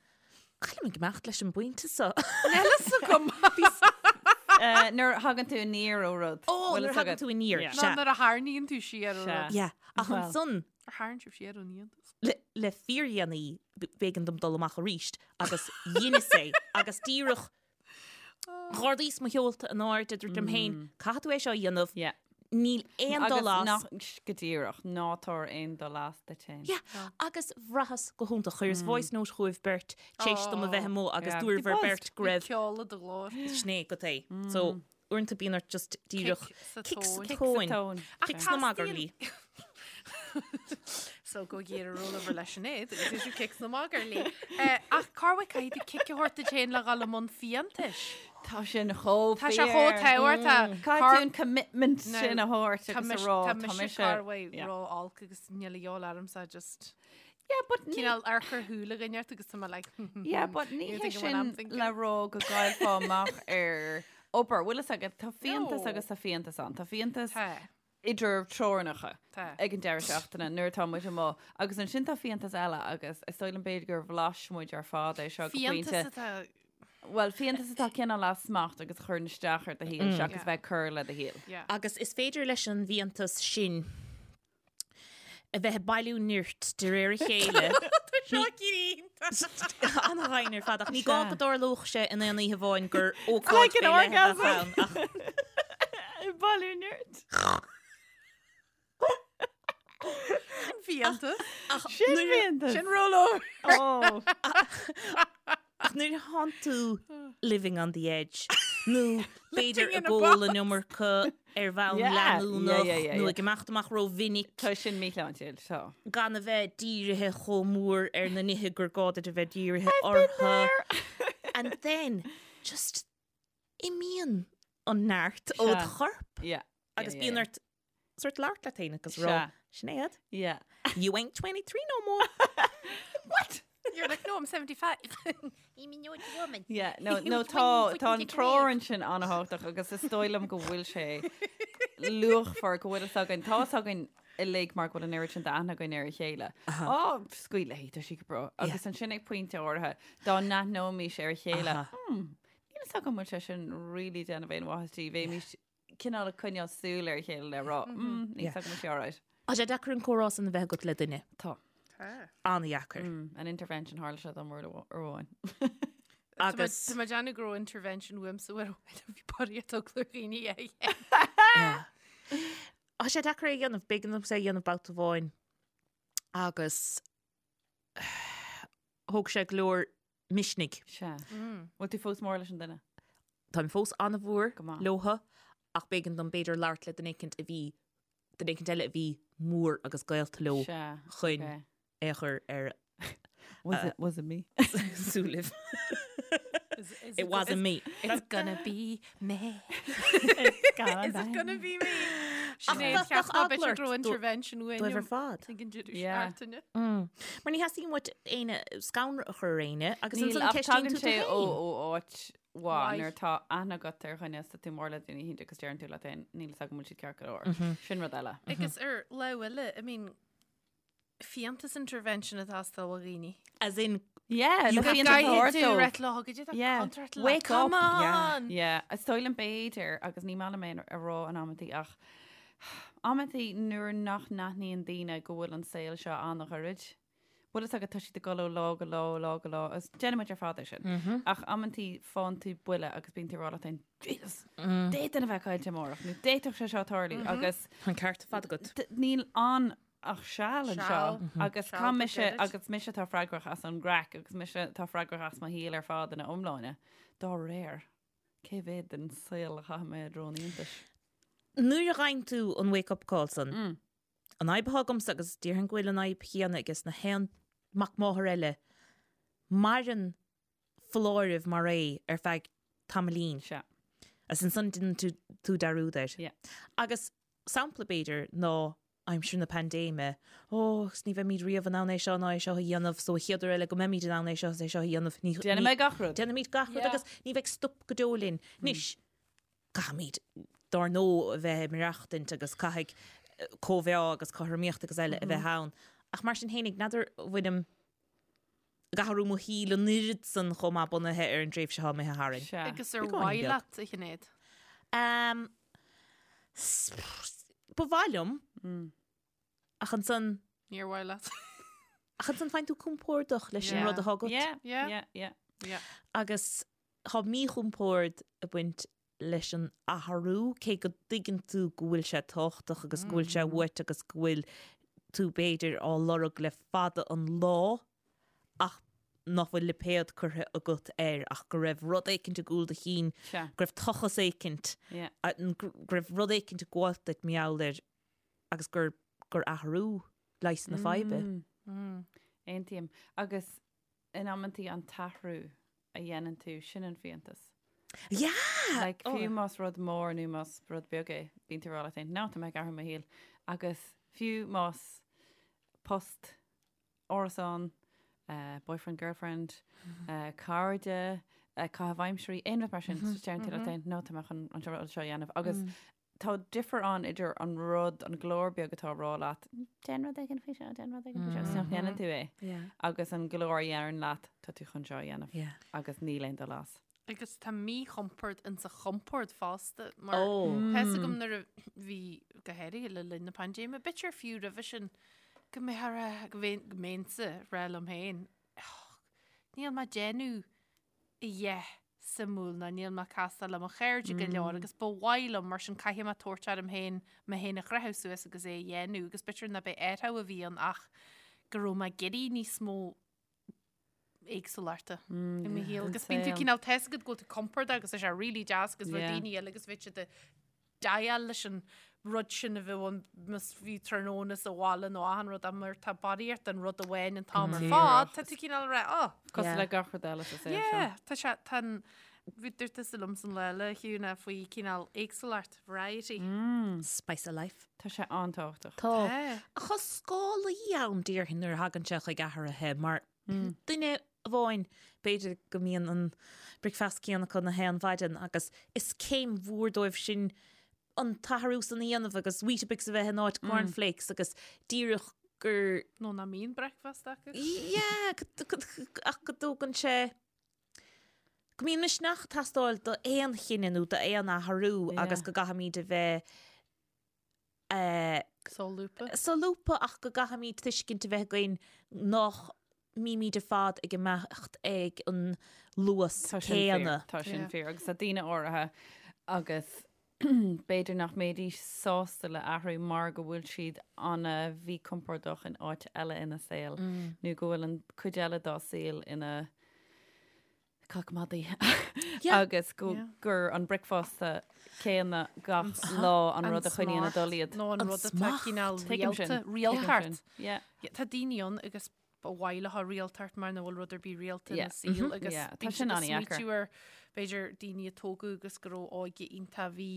Speaker 4: Cá bhfuilim ag imeacht leis an bpointe seo?
Speaker 2: Níl a fhios agam.
Speaker 3: Nuair a thagann tú aniar ó rud.
Speaker 4: Ó, nuair a thagann tú aniar.
Speaker 2: Sea. Nuair a tharraingíonn tú siar ó rud.
Speaker 4: Yeah, ach ansan.
Speaker 2: Ar tharraing sibh siar ón fhiántas?
Speaker 4: Le fíordhéanaí b'éigean dom dul amach arís agus dheineas é agus díreach Dh'ardaíos mo sheolta in airde, dúirt liom féin, caithfidh tú é seo a dhéanamh, níl aon dul as.
Speaker 3: Agus go díreach, ná tabhair aon dul as duit féin.
Speaker 4: Yeah, agus bhraitheas go hiontach. Chuireas voice note chugaibh beirt tar éis dom a bheith amuigh agus dúrabhair beirt go raibh.
Speaker 2: Bhí ceol i do ghlór.
Speaker 4: Sin é go é. So, uaireanta bíonn ort just díreach
Speaker 2: Kick sa
Speaker 4: kick sa tóin. Kick sna magairlí.
Speaker 2: So go iarraidh rollover leis an éad agus is kick sna magairlí. Ach cá bhfuil caithfidh tú cic a thabhairt duit féin le dhul i mbun fiántais?
Speaker 3: Tá sin chomh
Speaker 2: Tá sé chomh tábhachtach.
Speaker 3: Caithfidh tú an commitment sin a thabhairt agus a rá
Speaker 2: tá mise cá bhfuil ró-olc agus níl a dhíobháil ormsa just
Speaker 3: Yeah, but ní
Speaker 2: cineál amharc ar shúile dhuine ort agus tá mé like
Speaker 3: Yeah, but ní hé sin le rá go gcaillfeá amach ar obair. Bhfuil fhios agat, tá fiántas agus tá fiántas ann. Tá fiántas idir teorainneacha ag an deireadh seachtaine nuair atá muid amuigh. Agus ansin tá fiántas eile agus is dóigh liom b'fhéidir gur bhlais muid ar fad é seo go pointe.
Speaker 2: Fiántas atá
Speaker 3: Bhuel, fiántas atá cineál as smacht agus a chuireann isteach ar do shaol seachas bheith ag cur le do shaol.
Speaker 4: Agus is féidir leis an bhfiántas sin a bheith ag bailiú nirt de réir a chéile.
Speaker 2: Tá seo iontach.
Speaker 4: An-ghainn ar fad ach ní gá go dtarlódh sé in aon oíche amháin gur ócáid faoi leith a bheadh ann ach.
Speaker 3: Ag bailiú nirt.
Speaker 2: Sin fiántas.
Speaker 3: Sin fiántas.
Speaker 2: Sin rollover.
Speaker 3: Oh.
Speaker 4: Ach nuair a thánn tú living on the edge nó b'fhéidir ag ól an iomarca ar bhonn leanúnach nó ag imeacht amach rómhinic.
Speaker 3: Tá sin míshláintiúil, tá.
Speaker 4: Gan a bheith dírithe chomh mór ar na nithe gur gá duit a bheith dírithe orthu. And then, just imíonn an neart ó do chorp. Agus bíonn ort sort labhairt leat féin agus rá, Sinéad, you ain't 23 no more.
Speaker 2: What? You're like, no, I'm 75. I'm an old woman.
Speaker 3: Yeah, no, no, tá, tá an treoir ansin an-thábhachtach agus is dóigh liom go bhfuil sé luachmhar go bhfuil fhios againn, tá fhios againn uilig mar go bhfuil an oiread sin d'aithne againn ar a chéile. Á, scaoil léi, tá sí go breá. Agus ansin ag pointe áirithe, dá n-aithneoimis ar a chéile, hmm, níl fhios agam an bhfuil sé sin really déanamh aon mhaitheas di, bheimis cineál ag coinneáil súil ar a chéile le rá, mm, níl fhios agam an bhfuil sé alright.
Speaker 4: Tá sé deacair an comhrá san a bheith agat le duine.
Speaker 3: Tá.
Speaker 4: An-dheacair.
Speaker 3: An intervention tharla sé dom uair amháin.
Speaker 4: Agus.
Speaker 2: Tá mé ag déanamh go raibh intervention uaimsa uair amháin a bhí barraíocht eagla ar dhaoine é.
Speaker 4: Tá sé deacair é a dhéanamh, b'éigean domsa é a dhéanamh babhta amháin agus thóg sé go leor misnigh.
Speaker 3: Sea. Bhfuil tú fós mór leis an duine?
Speaker 4: Táim fós an-mhór
Speaker 3: Go maith.
Speaker 4: leotha ach b'éigean dom b'fhéidir labhairt le duine éicint a bhí, duine éicint eile a bhí mór agus gaolta leo
Speaker 3: Sea.
Speaker 4: chun
Speaker 3: Ok.
Speaker 4: é a chur ar
Speaker 3: Was it, was it me?
Speaker 4: súilibh. It wasn't me.
Speaker 2: It's gonna be me. Is it gonna be me? Sinéad,
Speaker 4: bheadh
Speaker 2: cheap mé
Speaker 4: eagla
Speaker 2: b'fhéidir
Speaker 4: ort
Speaker 2: go raibh intervention uainn.
Speaker 4: Dóibh ar fad.
Speaker 2: Ag an deireadh
Speaker 3: Yeah.
Speaker 2: seachtaine.
Speaker 4: Mar ní theastaíonn uait éinne scanradh a chur ar éinne agus
Speaker 3: Níl
Speaker 4: ansan
Speaker 3: ach
Speaker 4: ceistíonn
Speaker 3: tagann
Speaker 4: tú tú
Speaker 3: sé ó
Speaker 4: féin.
Speaker 3: ó áit mhaith
Speaker 2: Mhaith.
Speaker 3: nuair atá aithne agat ar dhuine is tá tú mór le duine éicint agus deireann tú leat féin níl fhios agam an bhfuil siad ceart go leor. Sin rud eile.
Speaker 2: Agus ar lámh eile, I mean, fiántas intervention atá ag teastáil ó dhaoine.
Speaker 4: As in,
Speaker 3: Yeah,
Speaker 4: You
Speaker 3: le
Speaker 4: have
Speaker 3: fiántas
Speaker 4: to
Speaker 3: a thabhairt
Speaker 2: Tú
Speaker 3: dóibh.
Speaker 2: reit lá go dtí
Speaker 3: Yeah.
Speaker 2: contract le.
Speaker 3: Wake
Speaker 2: Come
Speaker 3: up.
Speaker 2: on!
Speaker 3: Yeah, is dóigh liom b'fhéidir agus ní maith liom é a rá in amantaí ach amantaí nuair nach n-aithníonn daoine go bhfuil an saol seo an-ghairid. Bhfuil fhios agat tá siad ag dul ó lá go lá, ó lá go lá, agus déanann muid ar fad é sin. Ach amantaí faigheann tú buille agus bíonn tú ag rá leat féin, Jesus, d'fhéadfainn a bheith caillte amárach nó d'fhéadfadh sé seo tarlú agus
Speaker 4: Tá an ceart ar fad agat.
Speaker 3: níl ann ach seal anseo
Speaker 2: Seal.
Speaker 3: agus
Speaker 2: Seal
Speaker 3: tá
Speaker 2: go
Speaker 3: mise
Speaker 2: gairid.
Speaker 3: agus mise atá freagrach as an gcraic agus mise atá freagrach as mo shaol ar fad ina iomláine. Dá réir, cé mhéad den saol a chaithfidh mé i dtreo an fhiántais?
Speaker 4: Nuair a fhaigheann tú an wake up call san, an fhadhb atá agamsa agus déarfainn go bhfuil an fhadhb chéanna aige na haon mac máthar eile, maireann foláireamh mar é ar feadh tamaillín.
Speaker 3: Sea.
Speaker 4: Agus ansan déanann tú tú dearúd air.
Speaker 3: Yeah.
Speaker 4: Agus sampla b'fhéidir ná aimsir na paindéime, ó, agus ní bheimid riamh in ann é seo ná é seo a dhéanamh, so an chéad uair eile go mbeimid in ann é seo is é seo a dhéanamh, ní,
Speaker 3: Déanfaidh mé gach rud.
Speaker 4: Déanfaimid gach rud
Speaker 2: Yeah.
Speaker 4: agus ní bheidh stop go deo linn. Anois, caithfimid. dár ndóigh a bheith ag maireachtaint agus caithfidh cóimheá agus cothromaíocht agus eile a bheith ann. Ach mar sin fhéinig, n'fheadar an bhfuilim ag athrú mo shaoil an oiread san chomh maith bunaithe ar an dtréimhse atá imithe tharainn.
Speaker 3: Sea.
Speaker 2: Agus ar
Speaker 4: Beagáinín
Speaker 2: mhaith
Speaker 4: beag.
Speaker 2: leat, a Shinéad?
Speaker 4: Um, ba mhaith liom, ach ansan,
Speaker 2: Níor mhaith leat.
Speaker 4: ach ansan faigheann tú compordach leis an
Speaker 2: Yeah.
Speaker 4: rud atá agat.
Speaker 3: Yeah,
Speaker 2: Yeah.
Speaker 3: yeah, yeah.
Speaker 2: Yeah.
Speaker 4: Agus tá míchompord ag baint leis an athrú, cé go dtuigeann tú go bhfuil sé tábhachtach agus go bhfuil sé uait agus go bhfuil tú b'fhéidir á lorg le fada an lá ach nach bhfuil lipéad curtha agat air ach go raibh rud éicint i gcúl do chinn, go raibh tochas éicint, go raibh rud éicint ag gabháilt duit mar gheall air agus gur gur athrú leigheas na faidhbe.
Speaker 3: Aontaím. Agus in amantaí an t-athrú a dhéanann tú, sin an fiántas.
Speaker 4: Yeah!
Speaker 3: Like, fiú más rud mór nó más rud beag é, bíonn tú ag rá leat féin, no, tá mé ag athrú mo shaol. Agus fiú más post, árasán, eh, boyfriend, girlfriend, eh, cairde, eh, caitheamh aimsirí, aon rud mar sin, deireann tú leat féin, no, tá mé chun an rud seo a dhéanamh. Agus tá difear ann idir an rud, an glór beag atá ag rá leat, déan rud éigin faoi seo, déan rud éigin faoi seo, agus nach ndéanann tú é. Agus an glór a dheireann leat, tá tú chun seo a dhéanamh. Agus níl aon dul as.
Speaker 2: Agus tá míchompord insa chompord fosta, mar tá fhios agam nuair a bhí, go háirithe le linn na paindéime, b'fhéidir fiú roimhe sin, go mbeadh a rá, go mbeinnse ag rá liom féin, níl mé ag déanamh a dhath suimiúil ná níl mé ag castáil le mo chairde go leor agus ba mhaith liom mar sin caithfidh mé tabhairt orm féin mé féin a chroitheadh suas agus é a dhéanamh agus b'fhéidir ná b'é athrú a bhí ann ach go raibh mé ag iarraidh níos mó éagsúlachta i mo shaol agus bíonn tú cineál tá fhios agat go bhfuil tú compordach agus tá sé really deas agus bhfuil daoine eile agus bheadh siad ag déileáil leis an rud sin a bheadh ann más fiú tráthnóna sa bhaile nó achan rud ach mar tá barraíocht den rud amháin an t-am ar fad, tá tú cineál ag rá, oh.
Speaker 3: Cosúil le gach rud eile sa saol seo.
Speaker 2: Yeah, tá sé, tá an, bhí dúirt tusa liom san lá eile, a Shiún, faoi cineál éagsúlacht, variety.
Speaker 4: Spice of life.
Speaker 3: Tá sé an-tábhachtach.
Speaker 4: Tá. Ach tá scálaí ann déarfainn nuair a thagann sé chuig athruithe mar duine amháin b'fhéidir go mbíonn an bricfeasta céanna acu na haon mhaidin agus is céim mhór dóibh sin an t-athrú san a dhéanamh agus Weetabix a bheith in áit cornflakes agus díreach gur
Speaker 2: Nó nach mbíonn bricfeasta acu.
Speaker 4: Yeah, ach go dtógann sé go mbíonn misneach ag teastáil d'aon chinneadh nó d'aon athrú agus go gcaithfimid a bheith
Speaker 2: Solúbtha.
Speaker 4: Solúbtha ach go gcaithfimid tuiscint a bheith againn nach mbímid ar fad ag imeacht ag an luas
Speaker 3: Tá sin fíor,
Speaker 4: céanna.
Speaker 3: tá sin fíor agus tá daoine áirithe agus b'fhéidir nach mbeidís sásta le athrú mar go bhfuil siad ana-mhíchompordach in áit eile ina saol nó go bhfuil an cuid eile dá saol ina cac madaidh agus go gur an bricfeasta céanna gach lá an rud a choinníonn ag dul iad.
Speaker 2: Nó an rud atá cineál rialta, rialtacht. Tá daoine ann agus ba mhaith leo rialtacht mar nach bhfuil rud ar bith rialta ina saol agus
Speaker 3: Tá sin an-dheacair.
Speaker 2: ar b'fhéidir daoine a tógadh agus go raibh óige iontach bhí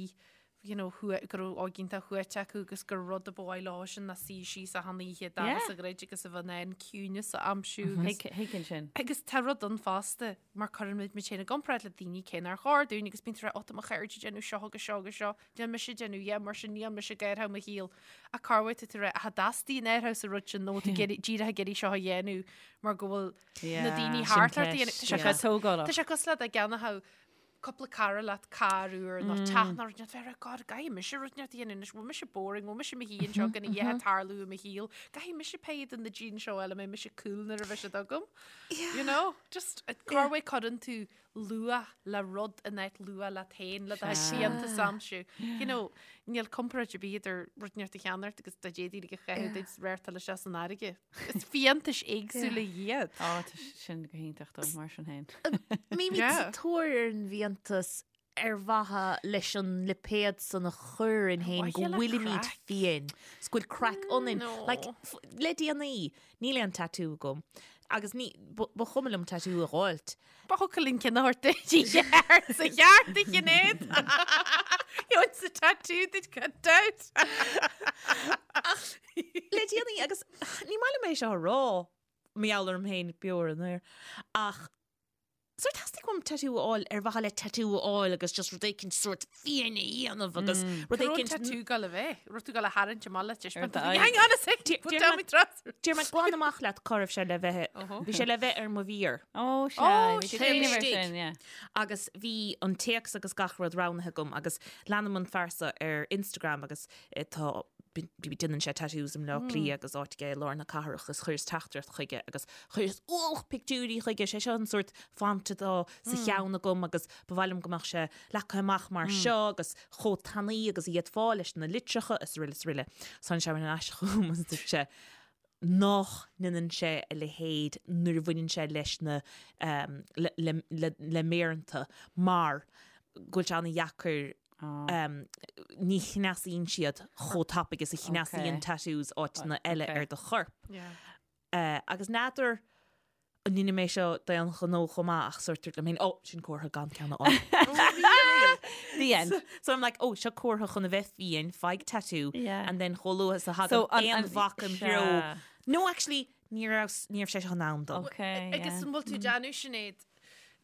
Speaker 2: you know, go raibh óige iontach shuaite acu agus gur rud a ba mhaith leo sin ná suí síos achan oíche dorcha sa ghrid agus a bheith in ann ciúineas a aimsiú agus
Speaker 3: Thuigfinn sin.
Speaker 2: Agus tá rud ann fosta mar cuireann muid muid féin i gcomparáid le daoine cé nár chóir dúinn agus bíonn tú ag rá, ó tá mo chairde ag déanamh seo agus seo agus seo, níl mise ag déanamh, yeah, mar sin níl mise ag athrú mo shaol. Ach corruair tá tú ag rá, ach an dteastaíonn athrú sa rud sin nó tú díreach ag iarraidh seo a dhéanamh mar go bhfuil na daoine thart ort a dhéanamh.
Speaker 3: Tá sé tógálach.
Speaker 2: Tá sé cosúil le dá gceannódh cúpla cara leat carr úr nó teach nó rud inteacht bheith ag rá God caithfidh mise rud inteacht a dhéanamh anois bhfuil mise boring bhfuil mise i mo shuí anseo gan a dhath ag tarlú i mo shaol caithfidh mise pay do na jeans seo eile mbeidh mise cool nuair a bheidh siad agam you know just corruair cuireann tú luach le rud in áit luach leat féin le do fhiántas a aimsiú you know níl comparáid ar bith idir rud inteacht a cheannacht agus dá d'fhéadfaí a chaitheamh duit réirteáil isteach san fharraige. Is fiántais éagsúla iad.
Speaker 3: Á, tá sin go hiontach dó, mar sin féin.
Speaker 4: Mbímid sa tóir ar an bhfiántas ar mhaithe leis an lipéad san a chur orainn féin go bhfuilimid fiáin, 's go bhfuil craic ionainn. Like, le déanaí, níl aon tatú agam agus ní, ba chuma liom tatú a dh'fháilt.
Speaker 2: Ba thiocfadh linn ceann a thabhairt duit i gceart sa cheart a Shinéad. Gheobhainn sa tattoo duit gan dabht.
Speaker 4: Ach le déanaí agus ní maith liom é seo a rá, mar gheall orm féin beo ar an aer, ach. Sórt theastaigh uaim tattoo a fháil ar mhaithe le tattoo a fháil agus just rud éicint sórt fiáin a dhéanamh agus rud
Speaker 2: Cá raibh an
Speaker 4: éicint
Speaker 2: tattoo ag gabháil a bheith? Raibh tú ag gabháil a tharraingt amach le
Speaker 3: Ar d'aghaidh.
Speaker 2: Hang on a sec, put down my trousers.
Speaker 4: Déarfaidh mé glan amach leat cá raibh sé le bheith, bhí sé le bheith ar mo mhéar.
Speaker 3: Ó, sea,
Speaker 2: Ó,
Speaker 3: bhí
Speaker 2: sin
Speaker 3: cuimhneamh ar
Speaker 4: istigh.
Speaker 3: sin, yeah.
Speaker 4: Agus bhí an téacs agus gach rud roghnaithe agam agus leanaim an fear seo ar Instagram agus tá déanann sé tattoos i mBleá Cliath agus áit aige i lár na cathrach agus chuireas teachtaireacht chuige agus chuireas ualach pictiúirí chuige, sé seo an sórt font atá sa cheann agam agus ba mhaith liom go mbeadh sé leagtha amach mar seo agus chomh tanaí agus a d'fhéadfá leis na litreacha is araile is araile. So tháinig sé ar ais chugam agus dúirt sé nach ndéanann sé a leithéid nuair a bhaineann sé leis na le méireanta mar go bhfuil sé an-dheacair ní chneasaíonn siad chomh tapaidh is a chneasaíonn tattoos áiteanna eile ar do chorp. Agus n'fheadar an ndeinim é seo d'aon ghnó chomh maith ach sórt dúirt liom féin, oh, sin comhartha gan ceann a fháil.
Speaker 3: The end.
Speaker 4: So I'm like, oh, seo comhartha chun a bheith fiáin, faigh tattoo, and then chomh luath is a thagann aon bhac im threo. No, actually, ní raibh ní raibh sé seo in am dom.
Speaker 2: Agus an bhfuil tú ag déanamh Sinéad,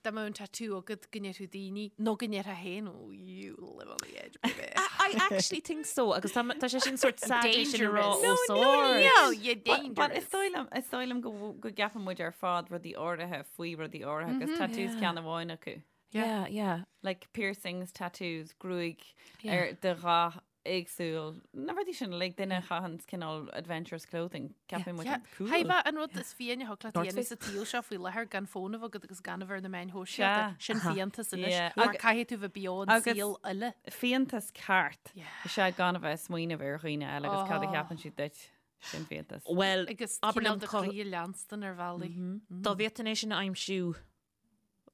Speaker 2: dá mbeadh an tattoo agat go ndéarfadh daoine nó go ndéarfá féin oh you live on the edge baby.
Speaker 4: I actually think so agus tá tá sé sin sort sad é sin a rá
Speaker 2: Dangerous.
Speaker 4: os ard.
Speaker 2: No, you're
Speaker 3: But is
Speaker 2: dangerous.
Speaker 3: dóigh liom is dóigh liom go go gceapann muid ar fad rudaí áirithe faoi rudaí áirithe agus tattoos ceann amháin acu.
Speaker 4: Yeah, yeah.
Speaker 3: Like piercings, tattoos, gruaig ar de dhath éagsúil. Na rudaí sin like duine a chaitheann cineál adventurous clothing. Ceapann muid
Speaker 2: Yeah.
Speaker 3: cool.
Speaker 2: Haimhe an rud is fiáine a thig leat a
Speaker 4: North
Speaker 2: dhéanamh
Speaker 4: Face.
Speaker 2: sa tsaol seo faoi láthair gan fón a bheith agat agus gan a bheith ar na meáin shóisialta.
Speaker 3: Sea.
Speaker 2: Sin fiántas anois.
Speaker 3: Yeah.
Speaker 2: Mar
Speaker 3: Agus-
Speaker 2: caithfidh tú bheith beo an
Speaker 3: agus-
Speaker 2: saol uile.
Speaker 3: Fiántas ceart.
Speaker 2: Yeah.
Speaker 3: Is ea gan a bheith ag smaoineamh ar dhaoine eile agus cad a
Speaker 2: Oh.
Speaker 3: cheapann siad duit. Sin fiántas.
Speaker 4: Well,
Speaker 2: Agus
Speaker 4: abair
Speaker 2: cineál
Speaker 4: liom
Speaker 2: do
Speaker 4: cá-
Speaker 2: chroí a leanstan ar bhealaí.
Speaker 4: dá bhféadfainn é sin a aimsiú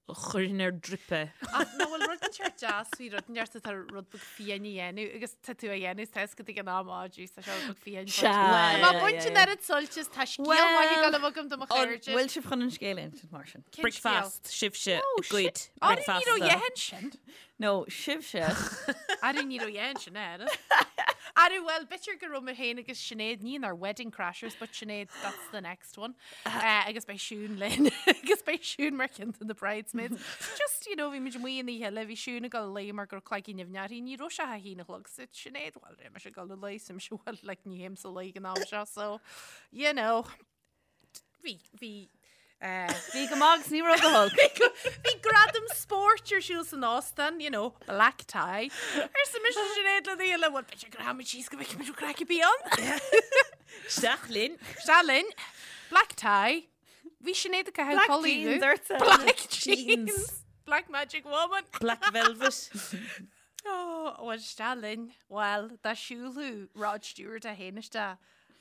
Speaker 4: Chuirfinn ar drip é.
Speaker 2: Ach nach bhfuil rud inteacht deas faoi rud inteacht atá rud beag fiáin a dhéanamh agus tá tú á dhéanamh is tá a fhios agat ag an am á jeez tá seo rud beag fiáin.
Speaker 3: Sea,
Speaker 2: Tá mé
Speaker 3: yeah,
Speaker 2: baint
Speaker 3: yeah,
Speaker 2: an
Speaker 3: yeah.
Speaker 2: oiread suilt is tá scéal maith ag dul a bheith agam do mo chairde.
Speaker 3: Bhfuil sibh chun an scéal a insint mar sin?
Speaker 2: Cén scéal?
Speaker 4: Bricfeast, sibhse ag goid
Speaker 2: Ara ní raibh
Speaker 4: bricfeasta.
Speaker 2: dheathain sin.
Speaker 3: No, sibhse.
Speaker 2: Ara ní raibh dheathain sin air. Ara well b'fhéidir go raibh mé féin agus Sinéad ní inár wedding crashers but Sinéad that's the next one. Uh, agus beidh Siún linn agus beidh Siún mar cheann de na bridesmaids. Just, you know, bhí muid amuigh an oíche eile, bhí Siún ag dul a luí mar go raibh cloigeann nimhneach uirthi, ní raibh sé a haon a chlog so Sinéad, well, raibh mise ag dul a luí, so mise, well, like, ní théimse a luí ag an am seo, so, you know, bhí, bhí, uh,
Speaker 3: Bhí go maith agus ní raibh go holc.
Speaker 2: Bhí gradam spóirt ar siúl san óstán, you know, black tie. Arsa mise Sinéad le daoine, well, b'fhéidir go rachaimid síos go bhfeicfimid an craic a bhí ann.
Speaker 4: Isteach linn.
Speaker 2: Isteach linn. Black tie. Bhí Sinéad ag caitheamh
Speaker 3: Black
Speaker 2: culaith
Speaker 3: jeans ortsa.
Speaker 2: Black jeans. Black magic woman.
Speaker 4: Black velvet.
Speaker 2: Oh, well, isteach linn. Well, dá siúlfadh Rod Stewart é féin isteach,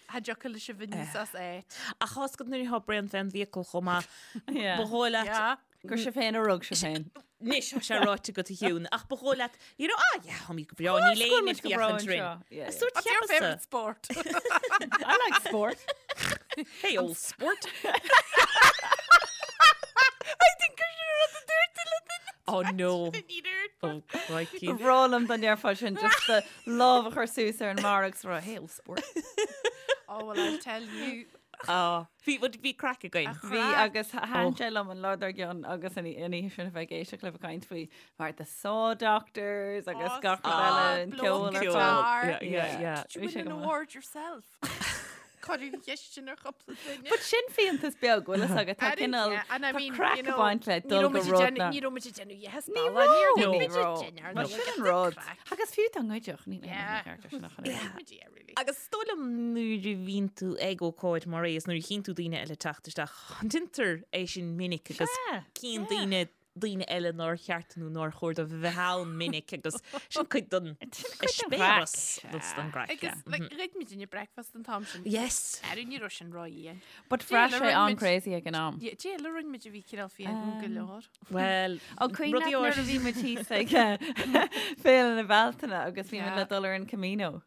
Speaker 2: cha dtiocfadh leis a bheith níos as áit.
Speaker 4: Ach tá a fhios agat nuair atá braon fén bhfiacail chomh maith.
Speaker 3: Yeah.
Speaker 4: Ba dhóigh leat
Speaker 2: Yeah.
Speaker 3: Gur sibh féin a rug sibh féin.
Speaker 4: Anois tá sé ráite agat a Shiún, ach ba dhóigh leat, you know, ah yeah, tháimid go breá, níl éinne ag féachaint orainn.
Speaker 3: Yeah, yeah.
Speaker 4: Sórt
Speaker 2: What's your favourite
Speaker 4: cheapasa.
Speaker 2: sport?
Speaker 3: I like sport.
Speaker 4: Hey, old sport.
Speaker 2: I think gur sin rud a dúirt tú le duine.
Speaker 4: Oh no.
Speaker 2: Ní dúirt.
Speaker 4: Oh, crikey.
Speaker 3: Ba bhreá liom dá ndéarfá sin just do lámh a chur suas ar an mbarra agus rá, hey old sport.
Speaker 2: Oh, well, I'll tell you.
Speaker 4: Ah, bhí bhí craic againn.
Speaker 3: Bhí agus thaitin sé liom an lá dár gcionn agus an oíche sin a bheith ag éisteacht libh ag caint faoi mar the Saw Doctors agus
Speaker 2: Oh,
Speaker 3: gach rud
Speaker 2: stop,
Speaker 3: eile an
Speaker 2: blow
Speaker 3: ceol ar
Speaker 2: guitar.
Speaker 3: fad.
Speaker 4: Yeah, yeah, yeah.
Speaker 2: Did you
Speaker 3: Bhí sé
Speaker 2: win an
Speaker 3: go maith.
Speaker 2: award yourself? Cuireadh an cheist sin ar chúpla duine.
Speaker 3: But sin fiántas beag bhfuil a fhios agat tá
Speaker 2: I didn't-
Speaker 3: cineál
Speaker 2: yeah, and I
Speaker 3: tá
Speaker 2: mean,
Speaker 3: craic
Speaker 2: you
Speaker 3: ag
Speaker 2: know,
Speaker 3: baint le
Speaker 2: ní
Speaker 3: dul
Speaker 2: raibh
Speaker 3: go
Speaker 2: muid ag
Speaker 3: rud
Speaker 2: déanamh-
Speaker 3: na.
Speaker 2: Ní raibh muid ag déanamh yes,
Speaker 3: Ní
Speaker 2: balla, ní
Speaker 3: raibh.
Speaker 2: raibh
Speaker 3: Ní
Speaker 2: muid ag
Speaker 3: raibh.
Speaker 2: déanamh,
Speaker 3: But
Speaker 2: no,
Speaker 3: sin
Speaker 2: get
Speaker 3: an
Speaker 2: the
Speaker 3: rud.
Speaker 2: craic.
Speaker 3: Agus fiú dá ngoidfeadh ní
Speaker 2: Yeah.
Speaker 3: ceart sin ach an oiread.
Speaker 2: Muid, yeah, really.
Speaker 4: Agus is dóigh liom nuair a bhíonn tú ag ócáid mar é is nuair a chíonn tú daoine eile teacht isteach, déantar é sin minic agus
Speaker 3: Sea,
Speaker 4: cíonn daoine daoine eile nár cheart nó nár chóir dóibh a bheith ann minic agus sin cuid den eispéireas agus den gcraic.
Speaker 2: Agus like, ghoid muid inne breakfast an t-am sin.
Speaker 4: Yes.
Speaker 2: Ar ní raibh sin ró-dhian.
Speaker 3: But bhraith
Speaker 2: Dé,
Speaker 3: sé
Speaker 2: le
Speaker 3: an
Speaker 2: rinne muid-
Speaker 3: crazy ag an am.
Speaker 2: Yeah, Dé le rinne muid a bhí cineál fiáin go leor.
Speaker 4: Well,
Speaker 3: Ó cuimhin
Speaker 4: rudaí
Speaker 3: leat nuair a
Speaker 4: áirithe-
Speaker 3: bhí muid thíos ag Féile na Bealtaine agus bhí muid
Speaker 2: Yeah.
Speaker 3: le dul ar an Camino.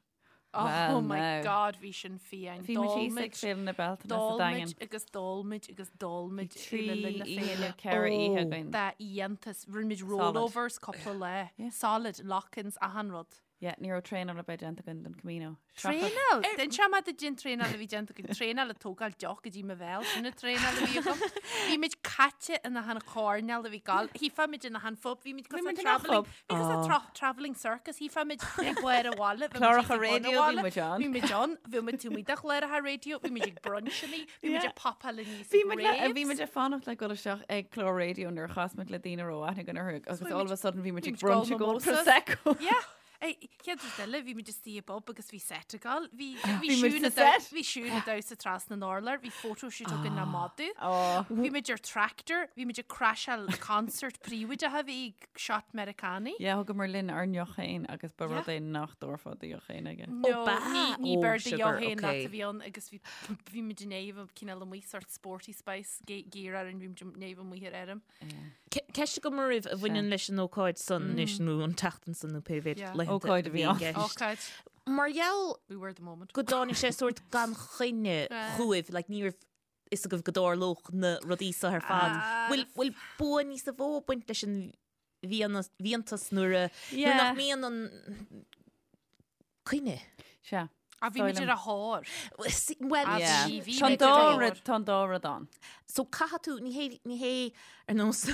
Speaker 2: Oh,
Speaker 3: Well,
Speaker 2: my
Speaker 3: now.
Speaker 2: God, bhí sin fiáin.
Speaker 3: Bhí muid thíos ag Féile na Bealtaine sa
Speaker 2: D'ól
Speaker 3: Daingean.
Speaker 2: muid agus d'ól muid agus d'ól muid
Speaker 3: Trí
Speaker 2: le linn na
Speaker 3: oíche
Speaker 2: féile.
Speaker 3: nó ceithre oíche
Speaker 4: Oh.
Speaker 3: againn.
Speaker 2: Dá fhiántas. Rinne muid
Speaker 3: Solid.
Speaker 2: rollovers cúpla lá.
Speaker 3: Yeah.
Speaker 2: Solid, lock-ins, achan rud.
Speaker 3: Yeah, ní raibh traenáil ar bith déanta againn don Camino.
Speaker 2: Traenáil? D'inseodh mé duit an traenáil a bhí déanta againn. Traenáil ag tógáil deoch go dtí mo bhéal, sin an traenáil a bhí agam. Bhí muid caite in achan choirnéal a bhí gal. Chífeá muid in achan phub, bhí muid cosúil le travelling, bhí cosúil le travelling circus, chífeá muid ag barr an bhaile, bhí muid
Speaker 3: Cláracha
Speaker 2: ag bun an
Speaker 3: raidió, bhí
Speaker 2: bhaile,
Speaker 3: muid ann.
Speaker 2: Bhí muid ann, bhí muid taobh amuigh de chláracha raidió, bhí muid ag bruncheannaí, bhí muid ag popáil aníos
Speaker 3: Bhí
Speaker 2: ag
Speaker 3: muid le, bhí
Speaker 2: raves.
Speaker 3: muid ag fanacht le dul isteach ag clár raidió nuair a chas muid le daoine a raibh aithne againn orthu agus all of a sudden bhí muid ag brunch ag ól Prosecco.
Speaker 2: Yeah. Ei, Chéad rud eile, bhí muid istigh i bpub agus bhí set ag dul. Bhí bhí
Speaker 3: Bhí muid
Speaker 2: Siún
Speaker 3: sa set.
Speaker 2: Bhí Siún ag damhsa trasna an urláir, bhí photoshoot againn le madadh.
Speaker 3: Oh.
Speaker 2: Bhí muid ar tractor, bhí muid ag crasháil concert príobháideach a bhí ag shot Meiriceánaigh.
Speaker 3: Yeah, thugamar linn ár ndeoch féin agus ba rud é nach dtabharfá do dheoch féin aige.
Speaker 2: No,
Speaker 4: ba
Speaker 2: ní ní
Speaker 4: Oh,
Speaker 2: b'ar do
Speaker 4: sugar,
Speaker 2: dheoch féin leat
Speaker 4: okay.
Speaker 2: a bhí ann agus bhí bhí muid in éamh cineál amuigh sort sporty spice gear orainn, bhí muid in éamh amuigh ar fheirm.
Speaker 4: Ceist agam oraibh a bhaineann leis an ócáid san anois nó an tseachtain san nó pé mhéad laethanta
Speaker 3: Ócáid a bhí ann.
Speaker 4: i gceist.
Speaker 2: Ócáid.
Speaker 4: Mar gheall
Speaker 2: We were the moment.
Speaker 4: go dtáinig sé sórt gan choinne chugaibh, like ní raibh fhios agaibh go dtarlódh na rudaí seo ar fad. Bhfuil bhfuil bua níos mó ag baint leis an bhfiántas nuair a nuair nach mbíonn an coinne?
Speaker 3: Sea.
Speaker 2: Ah, bhí muid ar a thóir.
Speaker 4: Well,
Speaker 2: Ah,
Speaker 3: Yeah.
Speaker 2: bhí- bhí
Speaker 3: Tá an
Speaker 2: muid ar
Speaker 3: dá
Speaker 2: a thóir.
Speaker 3: rud, tá an dá rud ann.
Speaker 4: So caithfidh tú, ní hé, ní hé ar nós,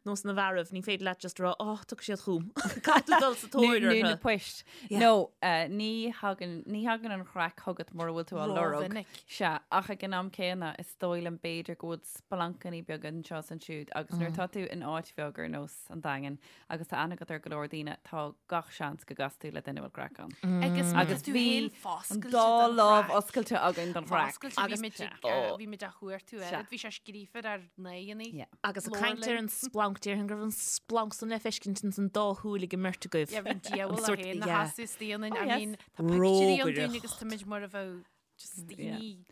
Speaker 4: nós na bhfearaibh, ní féidir leat just rá, oh, tiocfaidh siad chugam. Caithfidh tú dul sa tóir
Speaker 3: Nó na
Speaker 4: orthu.
Speaker 3: poist.
Speaker 4: Yeah.
Speaker 3: No, eh, ní thagann, ní thagann an chraic chugat mura bhfuil tú á lorg.
Speaker 2: Rómhinic.
Speaker 3: Sea, ach ag an am céanna, is dóigh liom b'fhéidir go bhfuil splancannaí beaga anseo is ansiúd agus nuair atá tú in áit bheag ar nós an Daingin agus tá aithne agat ar go leor daoine, tá gach seans go gcasfaidh tú le duine a bhfuil craic ann.
Speaker 2: Agus má tá
Speaker 3: Agus
Speaker 2: tú
Speaker 3: bhí
Speaker 2: féin
Speaker 3: an
Speaker 2: foscailte
Speaker 3: dá
Speaker 2: don
Speaker 3: lámh
Speaker 2: chraic.
Speaker 3: oscailte againn don chraic.
Speaker 2: Foscailte, bhí muid ag, eh, bhí muid á chuartú
Speaker 3: Sea.
Speaker 2: oiread, bhí sé scríofa ar ár n-aghaidheanna.
Speaker 3: Yeah.
Speaker 4: Agus ag caint ar an splanc, déarfainn go raibh an splanc san le feiscint ins an dá shúil ag an mbeirt agaibh.
Speaker 2: Yeah, bhí an diabhal
Speaker 4: sort-
Speaker 2: é féin na
Speaker 4: yeah.
Speaker 2: sheasamh istigh ionainn.
Speaker 3: Oh,
Speaker 2: I
Speaker 3: yes.
Speaker 2: mean, tá pictiúirí ann dúinn
Speaker 4: Rógaireacht.
Speaker 2: agus tá muid mar a bheadh just daoine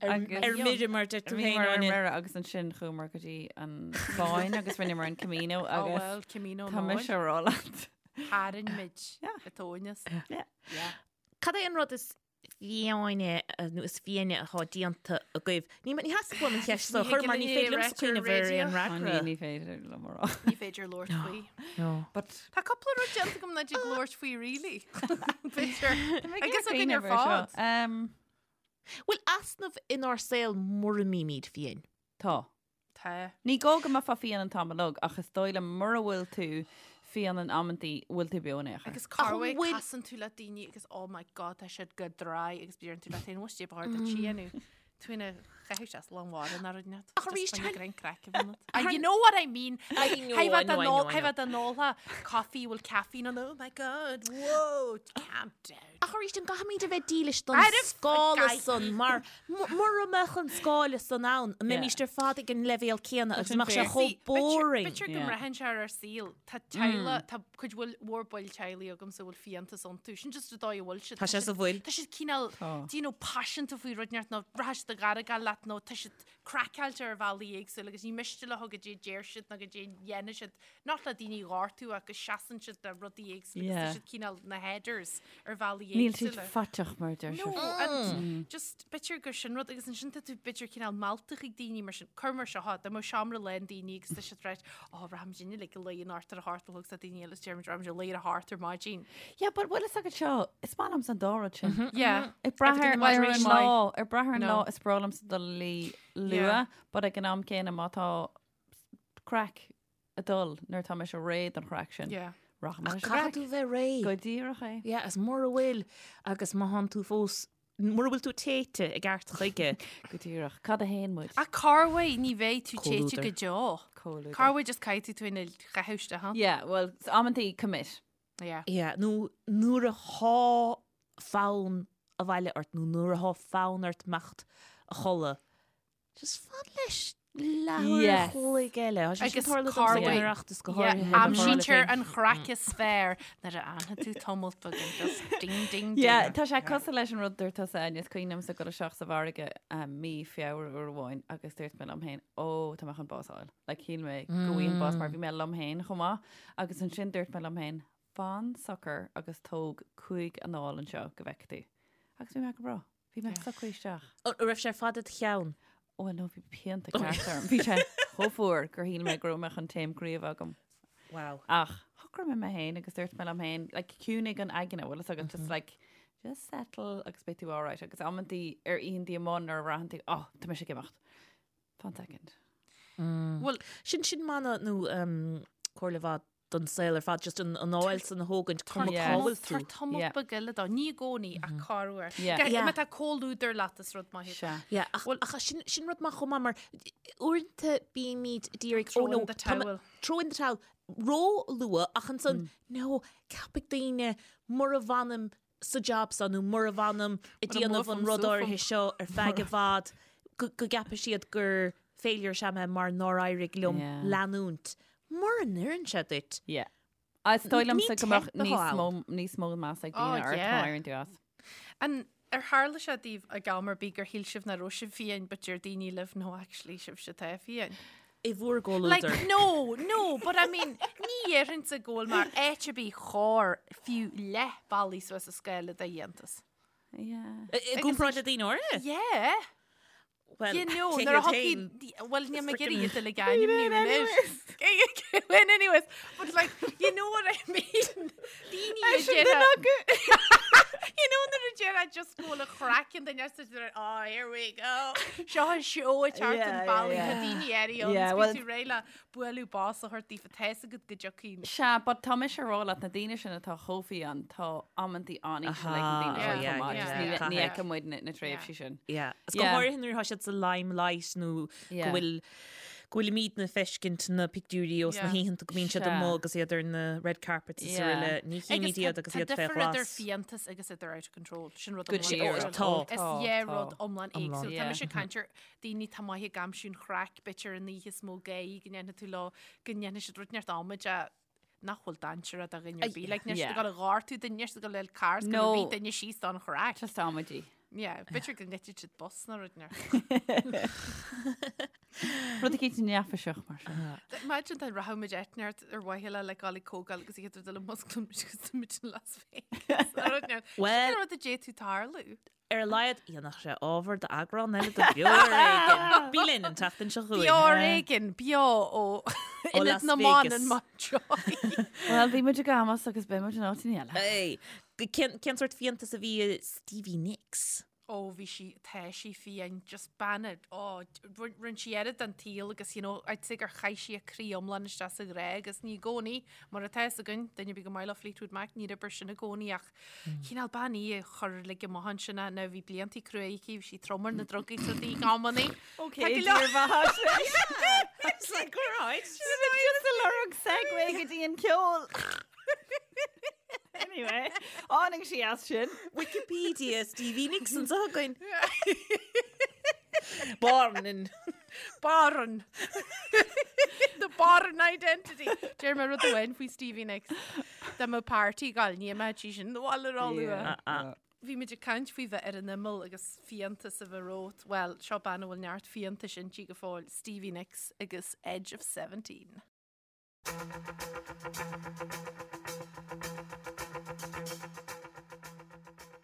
Speaker 3: Agus-
Speaker 4: Ar mire mar deir tú
Speaker 3: Bhí
Speaker 4: féin
Speaker 3: mar ar
Speaker 4: Áine.
Speaker 3: mire agus ansin chuamar go dtí an Spáinn agus rinneamar an Camino
Speaker 2: Oh
Speaker 3: agus
Speaker 2: well, Camino
Speaker 3: tá mise
Speaker 2: ná
Speaker 3: a rá leat.
Speaker 2: tharraing muid
Speaker 3: Yeah.
Speaker 2: a tóineas.
Speaker 3: Yeah.
Speaker 2: Yeah.
Speaker 4: Cad é an rud is fiáine nó is fiáine atá déanta agaibh? Ní ní theastaigh uaim an cheist seo a chur mar ní féidir liomsa cuimhneamh ar aon
Speaker 3: Ó, ní
Speaker 4: fhreagra.
Speaker 3: ní féidir liom a rá.
Speaker 2: Ní féidir labhairt faoi.
Speaker 4: No.
Speaker 3: But
Speaker 2: Tá cúpla rud déanta agam nach dtig labhairt faoi really. B'fhéidir. Agus againn ar
Speaker 3: cuimhneamh ar seo.
Speaker 2: fad.
Speaker 3: Um,
Speaker 4: Bhfuil easnamh inár saol mura mbímid fiáin?
Speaker 3: Tá.
Speaker 2: Tá.
Speaker 3: Ní gá go mbeifeá fiáin an t-am uilig, ach is dóigh liom mura bhfuil tú fiáin in amantaí, bhfuil tú beo in aon chor.
Speaker 2: Agus corruair
Speaker 4: bhfuil-
Speaker 2: casann tú le daoine agus oh my god tá siad go dry agus deireann tú leat féin what's ba chóir duit síonú. Tú ina chaitheamh sé lán mhara ná rud net.
Speaker 4: Ach arís,
Speaker 2: Just
Speaker 4: tá-
Speaker 2: grein craic a bheith ionat. You know what I mean.
Speaker 4: I know, I know, I know, I know.
Speaker 2: Tha an óltha coffee bhfuil caffeine on oh my god whoa calm down.
Speaker 4: Ach arís an gcaithfimid a bheith dílis don
Speaker 2: Arbh
Speaker 4: scála
Speaker 2: gcaithfidh.
Speaker 4: san mar mura mbeadh an scála san ann, an mbeimís ar fad ag an leibhéal céanna agus
Speaker 3: sin
Speaker 4: mbeadh sé
Speaker 3: fair.
Speaker 4: chomh boring.
Speaker 2: B'fhéidir go
Speaker 3: Yeah.
Speaker 2: mbraitheann sé ar ár saol. Tá teaghlaigh, tá cuid bhfuil mhór baill teaghlaigh agamsa a bhfuil fiántas iontu. Sin just an dóigh a bhfuil siad.
Speaker 4: Tá sé sa bhfuil.
Speaker 2: Tá siad cineál,
Speaker 3: Tá.
Speaker 2: do you know, paiseanta faoi rud inteacht nó rachaidh siad ag argáil leat nó tá siad craiceáilte ar bhealaí éagsúla agus ní miste leo goidé a deir siad nó goidé a dhéanann siad. Not le daoine a ghortú ach go seasann siad le rudaí éagsúla agus tá
Speaker 3: Yeah.
Speaker 2: siad cineál na headers ar bhealaí
Speaker 3: Níl siad
Speaker 2: éagsúla.
Speaker 3: faiteach mar deir
Speaker 2: No,
Speaker 3: siad.
Speaker 2: and just b'fhéidir gur sin rud agus ansin tá tú b'fhéidir cineál meallta chuig daoine mar sin cur mar seo dá mbeadh seomra lán daoine agus tá siad right ó rachaimid inniu like a luí anocht ar a hocht a chlog tá daoine eile deir muid rachaimid a luí ar a hocht ar maidin.
Speaker 3: Yeah, but bhfuil fhios agat seo, is maith liomsa an dá rud sin.
Speaker 2: Yeah.
Speaker 3: Ag brath ar
Speaker 2: Everything in
Speaker 3: ar an
Speaker 2: moderation.
Speaker 3: lá, ag brath ar an
Speaker 2: No.
Speaker 3: lá is breá liomsa dul a luí
Speaker 2: Yeah.
Speaker 3: luath, but ag an am céanna má tá craic ag dul nuair tá mise réidh don chraic sin.
Speaker 2: Yeah.
Speaker 3: Rachaidh mé leis an
Speaker 4: Caithfidh
Speaker 3: gcraic.
Speaker 4: tú bheith réidh.
Speaker 3: Go díreach é.
Speaker 4: Yeah, is mura bhfuil agus má thánn tú fós, mura bhfuil tú téite i gceart chuige.
Speaker 3: Go díreach. Cad a théann muid?
Speaker 2: Ach corruair ní bheidh tú téite
Speaker 4: Comhluadar.
Speaker 2: go deo.
Speaker 3: Comhluadar.
Speaker 2: Corruair just caithfidh tú ina chaitheamh isteach ann.
Speaker 3: Yeah, well, amantaí commit.
Speaker 2: Yeah.
Speaker 4: Yeah, nó nuair atá fonn abhaile ort nó nuair atá fonn ort imeacht a chodladh, just fan leis leathuair
Speaker 3: Yes.
Speaker 4: a chloig eile. Tá sé sin
Speaker 2: Agus
Speaker 4: tarla domsa
Speaker 2: corruair.
Speaker 4: ag an Oireachtas go
Speaker 2: Yeah,
Speaker 4: háirithe. le
Speaker 2: Aimsítear
Speaker 4: Fáil
Speaker 2: an chraic is fearr nuair a fhanfaidh tú tamall beag and just ding ding ding.
Speaker 3: Yeah, tá sé cosúil leis an rud dúirt tusa Áine, is cuimhin liomsa dul isteach sa mhargadh mí Feabhra uair amháin agus dúirt mé liom féin, ó, tá mé chun bás a fháil. Like, shíl mé go bhfaighinn bás mar bhí mé liom féin chomh maith. Agus ansin dúirt mé liom féin, fan socair agus tóg 5 anáil anseo go bhfeicfidh tú. Agus bhí mé go breá. Bhí mé socraithe isteach.
Speaker 4: An raibh sé ar fad i do cheann?
Speaker 3: Ó, no, bhí pianta ceart orm. Bhí sé chomh fuar gur shíl mé go raibh mé chun taom croí a bheith agam.
Speaker 4: Wow.
Speaker 3: Ach, Shocraigh mé mé féin agus dúirt mé liom féin, like, ciúnaigh an aigne, bhfuil fhios agat, just like, just settle agus beidh tú alright. Agus amantaí ar oícheantaí amuigh nuair a bhraitheann tú, oh, tá mise ag imeacht. Fan second.
Speaker 2: Bhuel,
Speaker 4: Sin sin mana nó um, comhairle mhaith don saol ar fad, just an anáil san a thógaint cuma cá bhfuil tú.
Speaker 2: Tabhair tamall beag eile dó, ní i gcónaí ach corruair. Má tá comhluadar leat is rud maith é.
Speaker 4: Yeah, ach ach sin sin rud maith chomh maith mar uaireanta bímid d'iarraidh
Speaker 2: Throw in the towel.
Speaker 4: Throw in the towel ró-luath ach ansan no, ceapfaidh daoine mura bhfanaim sa job seo nó mura bhfanaim ag déanamh an rud áirithe seo ar feadh i bhfad go gceapfaidh siad gur failure is ea mé mar nár éirigh liom leanúint. Mura n-oireann sé duit.
Speaker 3: Yeah. Is dóigh liomsa go mbeadh níos mó níos mó meas ag daoine ort má éiríonn tú as.
Speaker 2: An ar tharla sé daoibh ag am ar bith gur shíl sibh nach raibh sibh fiáin but deir daoine libh no actually sibhse atá fiáin?
Speaker 4: I bhur gcomhluadar.
Speaker 2: Like no, no, but I mean ní dhéarfainnse go bhfuil mé áit ar bith chóir fiú leath bealaigh suas an scála de fhiántas.
Speaker 3: Yeah.
Speaker 4: I gcomparáid le daoine áirithe?
Speaker 2: Yeah.
Speaker 4: Well,
Speaker 2: You know,
Speaker 4: cé
Speaker 2: nuair a
Speaker 4: hiad féin?
Speaker 2: thiocfaidh, well, níl mé ag iarraidh iad uilig a ainmniú anois. Well, anyways, but like, you know what I mean? Daoine a déarfá- You know nuair a déarfá just go bhfuil an chraic an duine sa deireadh, oh, here we go. Seo an seó ag teacht an bealaigh, tá daoine áirithe ann,
Speaker 3: Yeah,
Speaker 2: is
Speaker 3: well-
Speaker 2: bíonn tú réidh le bualadh bos a thabhairt daofa, tá fhios agat go dtiocfaidh.
Speaker 3: Sea, but tá mise ag rá leat na daoine sin atá chomh fiáin, tá amantaí an-íseal ag na daoine sin chomh maith, just ní ní fheiceann muid na na tréimhsí sin.
Speaker 4: Yeah. Is go háirithe nuair atá siad sa limelight nó go bhfuil go bhfuilimidne ag feiscint na pictiúirí ós na hoícheanta go mbíonn siad amuigh agus iad ar na red carpets is araile. Ní chímid iad agus iad fé
Speaker 2: Tá difear idir
Speaker 4: ghlas.
Speaker 2: fiántas agus idir out of control. Sin rud
Speaker 3: Go
Speaker 2: iomlán
Speaker 3: díreach.
Speaker 2: éagsúil.
Speaker 4: Tá.
Speaker 2: Is
Speaker 3: Tá,
Speaker 2: dhá
Speaker 3: tá.
Speaker 2: rud iomlán éagsúil. Tá
Speaker 3: Yeah.
Speaker 2: mise ag caint ar daoine atá maith ag aimsiú an chraic, b'fhéidir an oíche is mó gáire go ndéanfaidh tú leo, go ndéanfaidh siad rud inteacht amaideach nach bhfuil dainséarach do dhuine ar bith. Like, níl siad ag dul a ghortú duine, níl siad ag dul le carr, is go rith duine síos don chraic.
Speaker 3: Just amaidí.
Speaker 2: Yeah, b'fhéidir go ngoidfidh siad bus nó rud inteacht.
Speaker 3: Rud eicínt neafaiseach mar sin.
Speaker 2: Imagine dá rachadh muid áit inteacht ar mhaithe le le dul ag comhdháil agus iad ag dul a musclú muid agus tá muid in Las Vegas. Nó rud inteacht.
Speaker 4: Well-
Speaker 2: Sin rud a d'fhéadfadh tarlú.
Speaker 4: Ar a laghad, dhéanfadh sé ábhar d'eagrán eile de Beo ar Éigean. Bí linn an tseachtain seo chugainn.
Speaker 2: Beo ar Éigean, beo ó Ionad
Speaker 4: Las
Speaker 2: na mBan
Speaker 4: Vegas.
Speaker 2: in Mountjoy.
Speaker 3: Bhuel, bhí muid ag Amos agus beidh muid in áiteanna eile.
Speaker 4: Hey, cén, cén sórt fiántas a bhí i Stevie Nicks?
Speaker 2: Ó, bhí sí, tá sí fiáin, just bean, ó, rinne sí oiread den tsaol agus, you know, I'd say gur chaith sí a croí iomlán isteach sa ghrá agus ní i gcónaí, mar atá fhios againn, duine ar bith gur maith leo Fleetwood Mac, níor oibir sin i gcónaí ach Cineál bean í a chuir uilig amach ansin é, now bhí bliantaí crua aici, bhí sí trom ar na drugaí is rudaí ag amannaí.
Speaker 3: Ok,
Speaker 2: Tá go leor-
Speaker 3: dírbheatha.
Speaker 4: It's like, all right.
Speaker 3: Just ag lorg segue go dtí an ceol. Anyway, tháinig sí as sin.
Speaker 4: Wikipedia Stevie Nicks anseo againn. Born in
Speaker 2: Born. The Born identity. Deir mé rud amháin faoi Stevie Nicks. Dá mbeadh party ag gabháil, ní imeodh sí sin abhaile róluath. Bhí muid ag caint faoi bheith ar an imeall agus fiántas a bheith romhat. Bhuel, seo bean a bhfuil neart fiántais inti go fóill, Stevie Nicks agus Edge of 17.